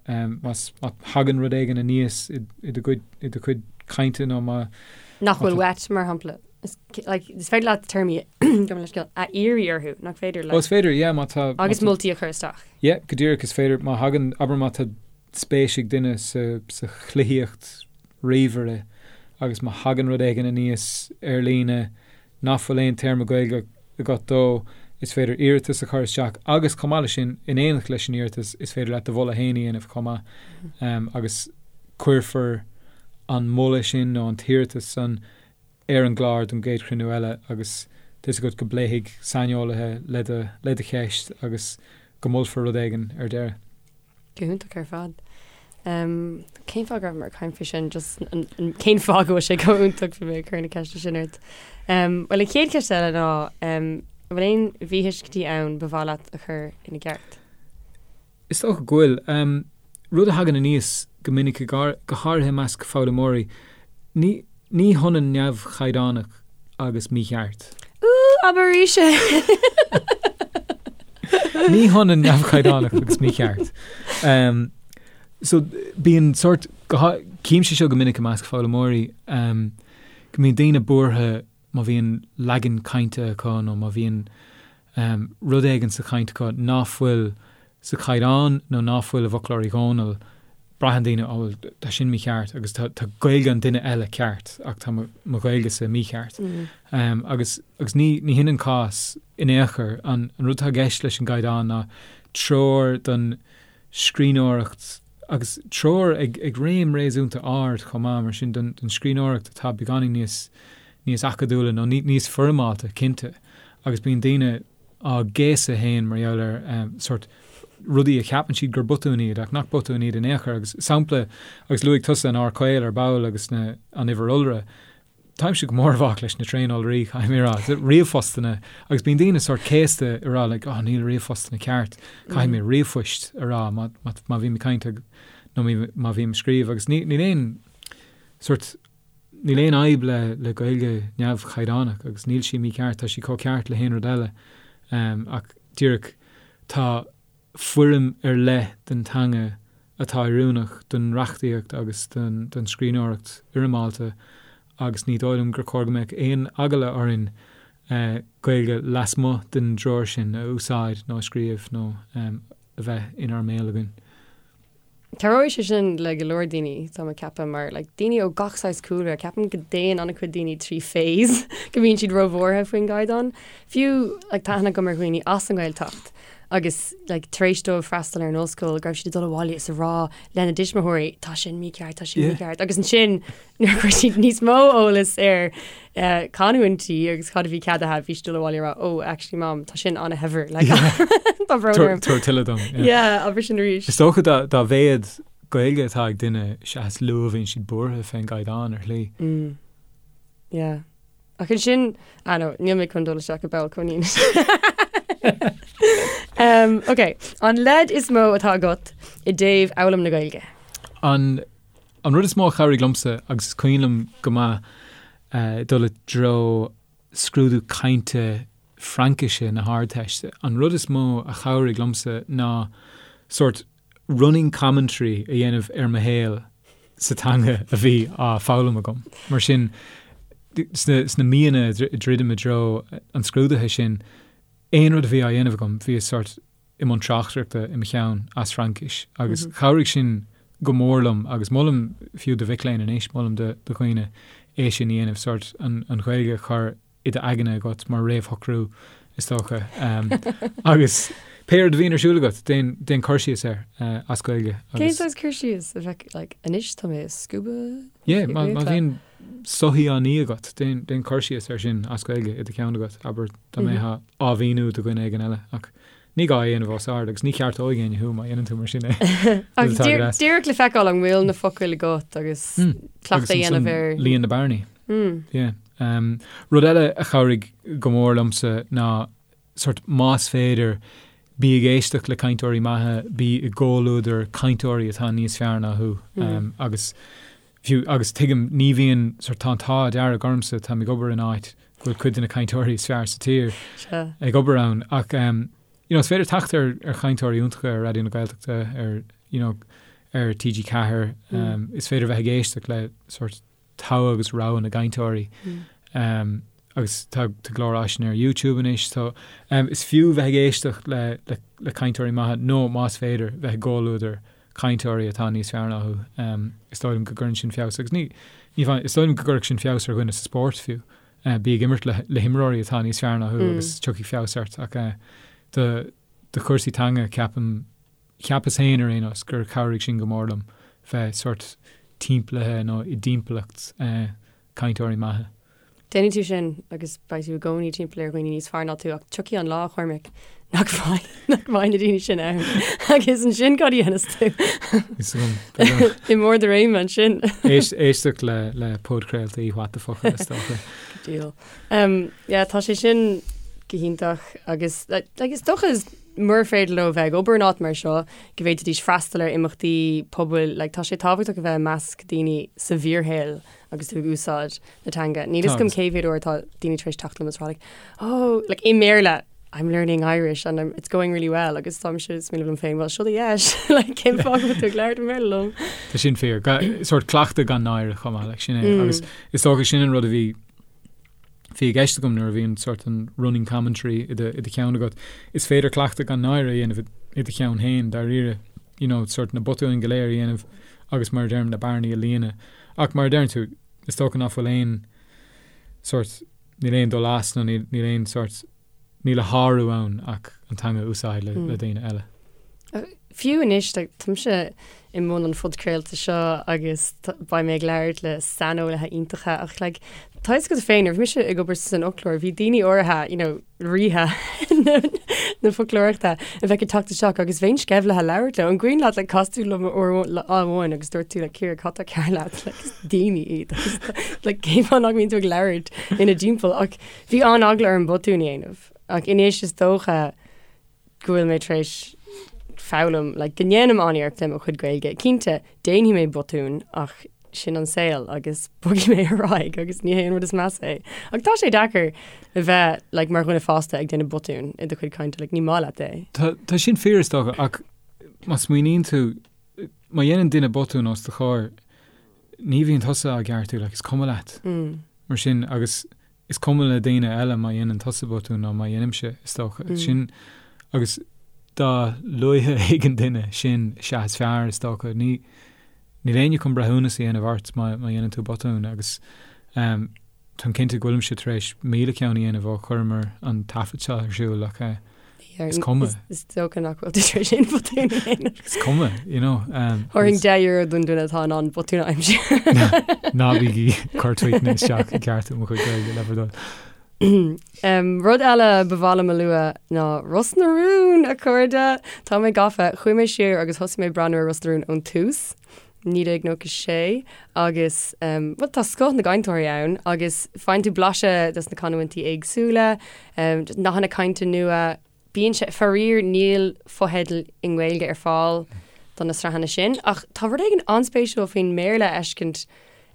más, má thagann rud éigin aníos i, i do gcuid, i do chuid cainte nó má. Nach bhfuil uait, mar shampla. Is like, is féidir leat téarmaí gabh mo leithscéal a iarraidh orthu, nach féidir like. Ó, is féidir, yeah, má tá. Agus moltaí a chur isteach. Yeah, go díreach, is féidir, má thagann, abair má tá spéis ag duine sa, sa chluichíocht ríomhaire agus má thagann rud éigin aníos ar líne nach bhfuil aon téarma Gaeilge agat dó, is féidir iarratas a chur isteach agus chomh maith leis sin, in éineacht leis an iarratas, is féidir leat do mholadh féin a dhéanamh chomh maith agus cuirfear an moladh sin nó an t-iarratas san ar an gclár don gcéad chruinniú eile agus tá 'fhios agat go bpléifidh saineolaithe le do le do cheist agus go molfar rud éigin ar deireadh. Go hiontach ar fad. Cén fáth go raibh mé ag caint faoi sin? Just cén fáth go bhfuil sé chomh iontach bhí mé ag cur na ceiste sin ort. Bhuel an chéad cheist eile ná an bhfuil aon mhíthuiscintí ann ba mhaith leat a chur ina gceart? Is dócha go bhfuil. Rud a thagann aníos go minic, go háirithe i measc foghlaimeoirí, ní ní hionann neamhchaighdeánach agus mícheart. Ooh, abair arís é! Ní hionann neamhchaighdeánach agus mícheart. Um, so bíonn sort címse seo go minic i measc foghlaimeoirí um, go mbíonn daoine buartha má bhíonn leagan cainte acu nó má bhíonn um, rud éigin sa chaint acu ná fuil sa chaighdeán nó ná fuil i bhfoclóir Uí Dhónaill, braitheann daoine, oh well, tá sin mícheart agus tá, tá Gaeilge an duine eile ceart ach tá mo, mo Ghaeilgese mícheart. Um, agus, agus ní, ní hin an cás in aon chor. An, an rud atá i gceist leis an gcaighdeán ná treoir don scríbhneoireacht agus treoir ag, ag réim réasúnta ard chomh maith, mar sin don, don scríbhneoireacht atá beagáinín níos, níos acadúla nó ní, níos foirmeálta, cinnte. Agus bíonn daoine á gcéasadh féin mar gheall ar sórt rudaí a cheapann siad gur botúin iad ach nach botúin iad in aon chor. Agus sampla, agus luaigh tusa an R caol ar ball agus na, an uimhir iolra, táimse go mór i bhfách leis na tréaniolraí, caithfidh mé a rá, ríomhphostanna, agus bíonn daoine sórt céasta ag rá like oh níl ríomhphostanna ceart, caithfidh mé ríomhphoist a rá má, má, má bhím ag caint nó má bhím ag scríobh agus ní, níl aon sórt Níl aon fhadhb le le Gaeilge neamhchaighdeánach agus níl sí mícheart, tá sí chomh ceart le haon rud eile ach díreach tá foirm ar leith den teanga atá oiriúnach don reachtaíocht agus don don scríbhneoireacht fhoirmeálta agus ní dóigh liom gur chóir go mbeadh aon eagla orainn Gaeilge lasmuigh den dtreoir sin a úsáid nó a scríobh nó a bheith inár mbéal againn. Cabhróidh sé sin le go leor daoine, tá mé ag ceapadh, mar like daoine ó gach saghas cúlra, ceapaim go dtéann an-chuid daoine trí phase go mbíonn siad róbhuartha faoin gcaighdeán. Fiú like tá aithne agam ar dhaoine as an nGaeltacht agus like tar éis dóibh freastal ar an ollscoil go raibh siad ag dul abhaile is a rá lena dtuismitheoirí tá sin mícheart, tá sin mícheart agus ansin Nuair a chuir siad níos mó eolas ar canúintí agus cad a bhí ceadaithe, bhí siad ag dul abhaile ag rá, oh, actually mom, tá sin an-shaibhir. Like, tá brón orm. Tabhair tuilleadh dom. Yeah, abair sin arís. Is dócha dá mhéad Gaeilge atá ag duine, is ea is lú a bhíonn siad buartha fén gcaighdeán ar shlí. Mm. Yeah. Ach ansin, ah no, níl mé chun dul isteach i bpoll coinín. um, ok, an leid is mó atá agat i dtaobh fhoghlaim na Gaeilge? An An rud is mó a chabhraigh liomsa, agus is cuimhin liom go maith dul i dtreo scrúdú cainte Fraincise na hArdteiste, an rud is mó a chabhraigh liomsa ná sórt running commentary a dhéanamh ar mo shaol sa teanga a bhí á foghlaim agam. Mar sin, sna míonna a dhruidim i dtreo an scrúdaithe sin, aon rud a bhí á dhéanamh agam, bhíos sórt i mbun tráchtaireachta i mo cheann as Fraincis agus chabhraigh sin go mór liom agus molaim fiú do mhic léinn anois, molaim do dhaoine é sin a dhéanamh, sórt an Ghaeilge a chur i d'aigne agat mar réamhshocrú is dócha agus pé rud a bhíonn ar siúl agat, déan, déan cur síos air as Gaeilge agus. Cén saghas cur síos a bheadh like anois tá mé ag scuabadh? Yeah, má bhíonn soithí á ní agat, déan, déan cur síos air sin as Gaeilge i do cheann agat, abair dá mbeifeá á mhíniú do dhuine éigin eile ach Ní gá é a dhéanamh os ard agus ní cheartóidh éinne thú má dhéanann tú mar sin é. Ach díreach le feiceáil an bhfuil na focail agat agus cleachtadh a dhéanamh ar. Líon na bearnaí. Yeah. Rud eile a chabhraigh go mór liomsa ná sort más féidir bí ag éisteacht le cainteoirí maithe, bí i gcomhluadar cainteoirí atá níos fearr ná thú agus fiú agus tuigim ní bhíonn sort tá an t-ádh dearg ormsa táim ag obair in áit go bhfuil cuid de na cainteoirí is fearr sa tír ag obair ann ach um, you know, is féidir teacht ar, ar chainteoirí iontacha ar Raidió na Gaeltachta ar, you know, ar TG4 mm. um, is féidir bheith ag éisteacht le sort togha agus rogha na gcainteoirí mm. um, agus tá tá go leor áiseanna ar YouTube anois so um, is fiú bheith ag éisteacht le, le, le cainteoirí maithe nó más féidir bheith i gcomhluadar cainteoirí atá níos fearr ná thú. Is dóigh liom go gcuireann sin feabhas agus ní, ní bheidh, is dóigh liom go gcuirfeadh sin feabhas ar dhuine sa spórt fiú. Bí ag imirt le, le himreoirí atá níos fearr ná thú agus tiocfaidh feabhas ort ach do, do chúrsaí teanga ceapaim, cheapas féin ar aon nós gur chabhraigh sin go mór liom bheith sórt timpeallaithe nó i dtimpeallacht cainteoirí maithe. Déanfaidh tú sin agus beidh tú i gcónaí timpeall ar dhaoine níos fearr ná tú ach tiocfaidh an lá, a Chormaic, nach mbeidh, nach mbeidh na daoine sin ann agus ansin cad a dhéanfas tú? Is agam, b'fhéidir. I mbarr do réime ansin. Éist, éisteacht le, le podchraoltaí What the Focal is dócha. Deal. Um, yeah, tá sé sin go hiontach agus like, like, is dócha is mura féidir leo bheith ag obair in áit mar seo go bhféadfaidís freastal ar imeachtaí pobail, like, tá sé tábhachtach a bheith i measc daoine sa bhfíorshaol agus tú ag úsáid na teanga. Níl fhios agam cé mhéad uair atá daoine tar éis teacht liom is rá like, oh, like i mBéarla. I'm learning Irish and I'm, it's going really well agus táimse ag smaoineamh liom féin, well seo do dheis, like cén fáth go bhfuil tú ag labhairt i mBéarla liom? Tá sin fíor. Sórt cleachtadh gan náire chomh maith, like sin é. Agus is dócha sin an rud a bhí bhí i gceist agam nuair a bhí an sórt an running commentary i do, i do cheann agat. Is féidir cleachtadh gan náire a dhéanamh i do cheann féin, dáiríre, you know, sórt na botúin go léir a dhéanamh agus mar a deirim na bearnaí a líonadh. Ach mar a deireann tú, is dócha nach bhfuil aon sórt, níl aon dul as nó níl, níl aon sórt, níl a shárú ann ach an teanga a úsáid le, le daoine eile. Fiú anois, like, táimse i mbun an phodchraolta seo agus beidh mé ag labhairt le saineolaithe iontacha ach like, tá fhios agat féin, nuair a bhí mise ag obair san fhoclóir, bhí daoine áirithe, you know, ríthe na foclóireachta a bheadh ag teacht isteach agus bheinn sceimhlithe labhairt leo. An cuimhin leat like, chas tú liom uair lá amháin agus dúirt tú like, Ciara, cad tá cearr leat? Like, is daoine iad agus like, cén fáth nach mbíonn tú ag labhairt ina dtimpeall ach bhí an-eagla orm botún a dhéanamh ach anois is dócha go bhfuil mé tar éis foghlaim like, go ndéanaim an-iarracht le mo chuid Gaeilge. Cinnte, déanfaidh mé botún ach sin an saol agus bogfaidh mé ar aghaidh agus ní hé an rud is measa é. Ach tá sé deacair a bheith like, mar dhuine fásta ag déanamh botún i do chuid cainte, like, ní maith leat é. Tá, tá sin fíor is dócha ach má smaoiníonn tú, má dhéanann duine botún os do chomhair, ní bhíonn tusa á gceartú, like, is cuma leat. Mm. Mar sin agus is cuma le daoine eile má dhéanann tusa botún nó má dhéanaimse, is dócha. Mm. Sin agus dá luaithe a thuigeann duine sin is ea is fearr, is dócha. Ní níl éinne chun breithiúnas a dhéanamh ort má má dhéanann tú botún agus um, táim cinnte go bhfuilimse tar éis 1000 ceann a dhéanamh ó chuireamar an taifead seo ar siúl ach eh, Is cuma. Is dócha nach bhfuil tú tar éis aon bhotún a dhéanamh. Is cuma, you know. Um, Thabharfainn €10 don duine atá in ann botún a aimsiú. Ná bígí ag cur tweetanna isteach ag ceartú mo chuid Gaeilge le bhur dtoil. Um, rud eile ba mhaith liom a lua ná Ros na Rún, a chairde! Tá mé gafa, chuaigh mé siar agus thosaigh mé ag breathnú ar Ros na Rún ón tús. 1996 agus um, well, tá scoth na gcainteoirí ann agus faigheann tú blaiseadh des na canúintí éagsúla, um, nathanna cainte nua, bíonn sé, faraor níl fotheidil i nGaeilge ar fáil do na sraitheanna sin, ach tá rud éigin an-spéisiúil faoin mBéarla a fheiscint.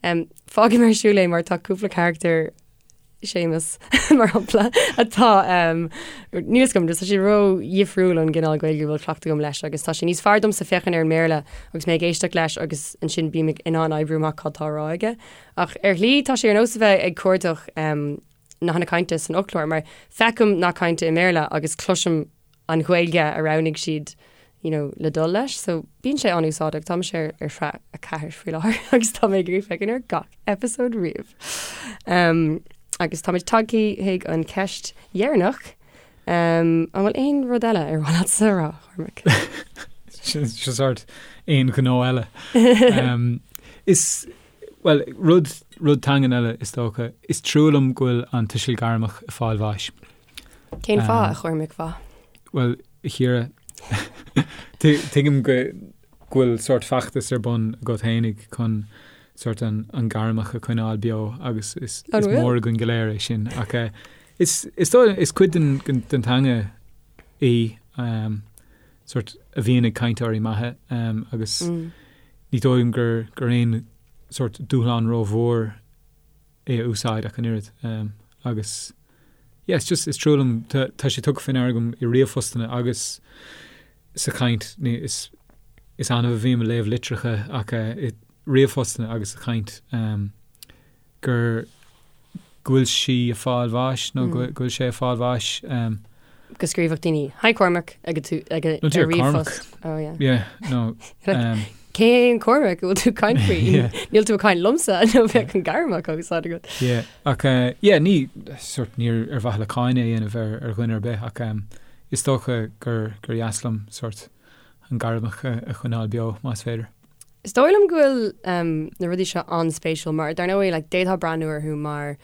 Um, fágfaidh mé ar siúl é mar tá cúpla carachtar Séamus, mar shampla, atá, níl 'fhios agam, tá sé ró-dhifriúil ón gcineál Gaeilge a bhfuil cleachtadh agam leis agus tá sé níos fearr domsa féachaint ar an mBéarla agus mé ag éisteacht leis agus ansin bím in ann oibriú amach cad tá á rá aige. Ach ar shlí tá sé ar nós a bheith ag cuardach nathanna cainte san fhoclóir mar feicim nath cainte i mBéarla agus cloisim an Ghaeilge a roghnaigh siad you know, le dul leis. So bíonn sé an-úsáideach. Tá mise ar, ar shraith 4 faoi láthair agus tá mé ag iarraidh féachaint ar gach episode riamh. Um, agus táimid tagtha chuig an ceist dheireanach. Um, an bhfuil aon rud eile ar mhaith leatsa a rá, Cormac? Sin sórt aon ghnó eile. Um, is well, rud, rud teangan eile is dócha, is trua liom go bhfuil an tuiseal gairmeach ag fáil bháis. Cén fáth, a Chormaic mhaith? Bhuel, a Chiara, tuigim go bhfuil sórt feachtas ar bun agat fhéinig chun sórt an gairmeach a choinneáil beo agus is mór againn go léir é sin. Ach eh, is, is, is cuid den, den teanga í um, sórt a bhíonn ag cainteoirí maithe um, agus mm. ní dóigh liom gur, gur aon sórt dúshlán rómhór é a úsáid ach an oiread. Um, agus yeah, it's just, is trua liom, tá, tá sé tugtha faoi ndeara agam i ríomhphostanna agus sa chaint, ní, is, is annamh a bhím ag léamh litreacha ach uh, i ríomhphostanna agus sa chaint um, gur go bhfuil sí ag fáil bháis nó mm. go bhfuil sé ag fáil bháis. Um, go scríobhadh daoine Hi Cormac ag tú ag a ríomhphost. Oh yeah. Yeah, no. Um, Cé hé an Cormac a bhfuil tú ag caint faoi? Níl tú ag caint liomsa nó bheadh an gairmeach á úsáid agat. Yeah, ach uh, yeah, ní sort ní ar mhaithe le cáineadh a dhéanamh ar, ar dhuine ar bith ach um, is dócha gur, gur dheas liom sort an gairmeach a, a choinneáil beo más féidir. Is dóigh liom go bhfuil um, na rudaí seo an-spéisiúil mar dar ndóigh like, d'fhéadfá breathnú orthu mar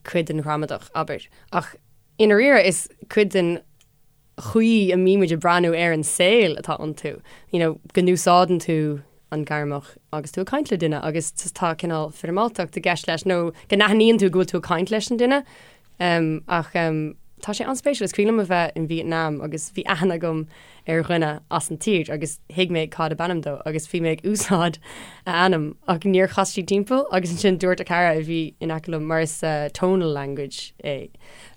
cuid den ghramadach, abair. Ach I ndáiríre, is cuid den chaoi a mbímid ag breathnú ar an saol atá iontu, you know, go n-úsáideann tú an gairmeach agus tú ag caint le duine agus tá cineál foirmeáltacht i gceist leis nó go n-aithníonn tú go bhfuil tú ag caint leis an duine. Um, ach um, Tá sé an-spéisiúil, is cuimhin liom a bheith in Vietnam agus bhí aithne agam ar dhuine as an tír agus thuig mé cad ab ainm dó agus bhí mé ag úsáid a ainm ach níor chas sí timpeall agus ansin dúirt a cara a bhí in aice liom mar is tonal language é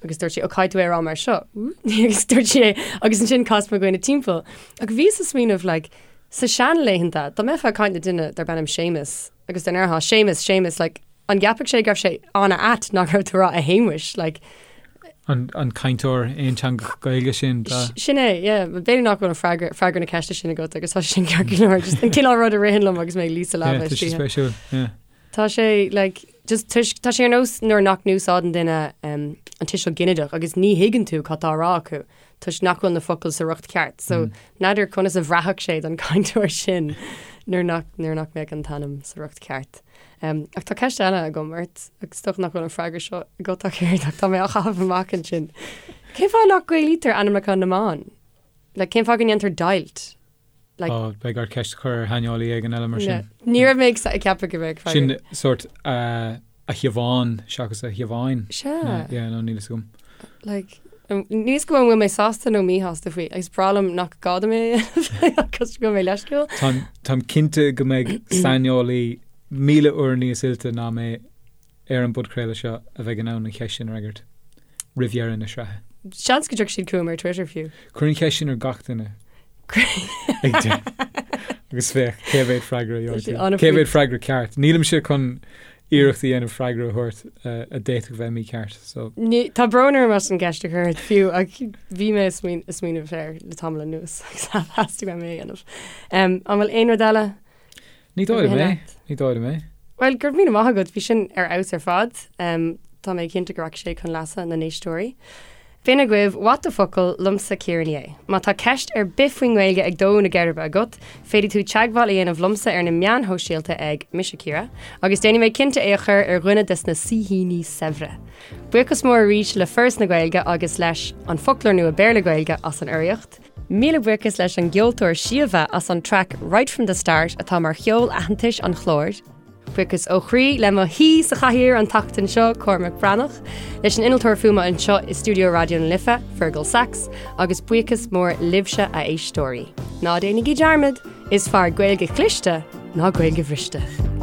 agus dúirt sí ó caithfidh tú é a rá mar seo agus dúirt sí é agus ansin chas mo dhuine timpeall ach bhíos ag smaoineamh like sa seanlaethanta dá mbeifeá ag caint le duine darb ainm Séamus agus dá ndéarfá Séamus Séamus like An gceapfadh sé go raibh sé an-ait nach raibh tú ag rá a Shéamuis, like. An cainteoir aonteangach Gaeilge sin, ba. Sin é, yeah. B'fhéidir nach bhfuil an freagra, freagra na ceiste sin agat agus tá sé sin ceart go leor. Just an cineál rud a ritheann liom agus mé ag luí sa leaba Yeah, tá sé istoíche. spéisiúil, yeah. Tá sé, like, just toisc, tá sé ar nós nuair nach n-úsáideann duine um, an tuiseal ginideach agus ní thuigeann tú cad tá á rá acu toisc nach bhfuil na focail sa riocht ceart. So, n'fheadar conas a bhraithfeadh sé don chainteoir sin nuair nach, nuair nach mbeadh an t-ainm sa riocht ceart. Ach tá ceist eile agam ort, agus is dócha nach bhfuil an freagra seo agat ach oiread, ach tá mé á chaitheamh amach ansin. Cén fáth nach Gaelaítear ainmneacha na mban? Like, cén fáth go ndéantar deighilt? Like, Ó, beidh ort ceist a chur ar shaineolaí éigin eile mar sin. Ní raibh mé ag ceapadh go mbeadh freagra. Sin sórt a Shiobhán seachas a Shiobháin. Sea. Yeah, no, níl fhios agam. Like, níl fhios agam an bhfuil mé sásta nó míshásta faoi, agus breá liom nach gá dom é a dhéanamh agus go bhfuil mé leisciúil. Táim cinnte go mbeidh saineolaí 1,000 uair níos oilte ná mé ar an bpodchraoladh seo a bheidh in ann an cheist sin a fhreagairt roimh dheireadh na sraithe. Seans go dtiocfaidh siad chugam ar Twitter fiú. Cuir an cheist sin ar gach duine ag deireadh agus féach cé mhéad freagra a gheobhaidh tú. Cé mhéad freagra ceart. Nílimse chun iarracht a dhéanamh freagra a thabhairt a d'fhéadfadh bheith mícheart. So. Ní, tá brón orm as an gceist a chur ort fiú ach bhí mé ag smaoineamh air le tamall anuas agus theastaigh uaim é a dhéanamh. An bhfuil aon rud eile? Ní dóigh liom é. Ní dóigh liom é. Bhuel, go raibh míle maith agat, bhí sin ar fheabhas ar fad. Tá mé cinnte go rachaidh sé chun leasa na n-éisteoirí. B'in agaibh What the Focal liomsa Ciara Ní É. Má tá ceist ar bith faoin nGaeilge ag dó na geirbe agat, féadfaidh tú teagmháil a dhéanamh liomsa ar na meáin shóisialta ag Mise Ciara, agus déanfaidh mé cinnte é a chur ar dhuine des na saoithíní saibhre. Buíochas mór arís le Foras na Gaeilge agus leis An Foclóir Nua Béarla-Gaeilge as an urraíocht. Míle buíochas leis an gceoltóir Síomha as an traic Right From The Start atá mar cheol aitheantais an chláir. Buíochas ó chroí le mo shaoi sa chathaoir an tseachtain seo, Cormac Breathnach, leis an innealtóir fuaime anseo i stiúideo Raidió na Life, Fergal Sachs, agus buíochas mór libhse a éisteoirí. Ná déanaigí dearmad, is fearr Gaeilge chliste ná Gaeilge bhriste.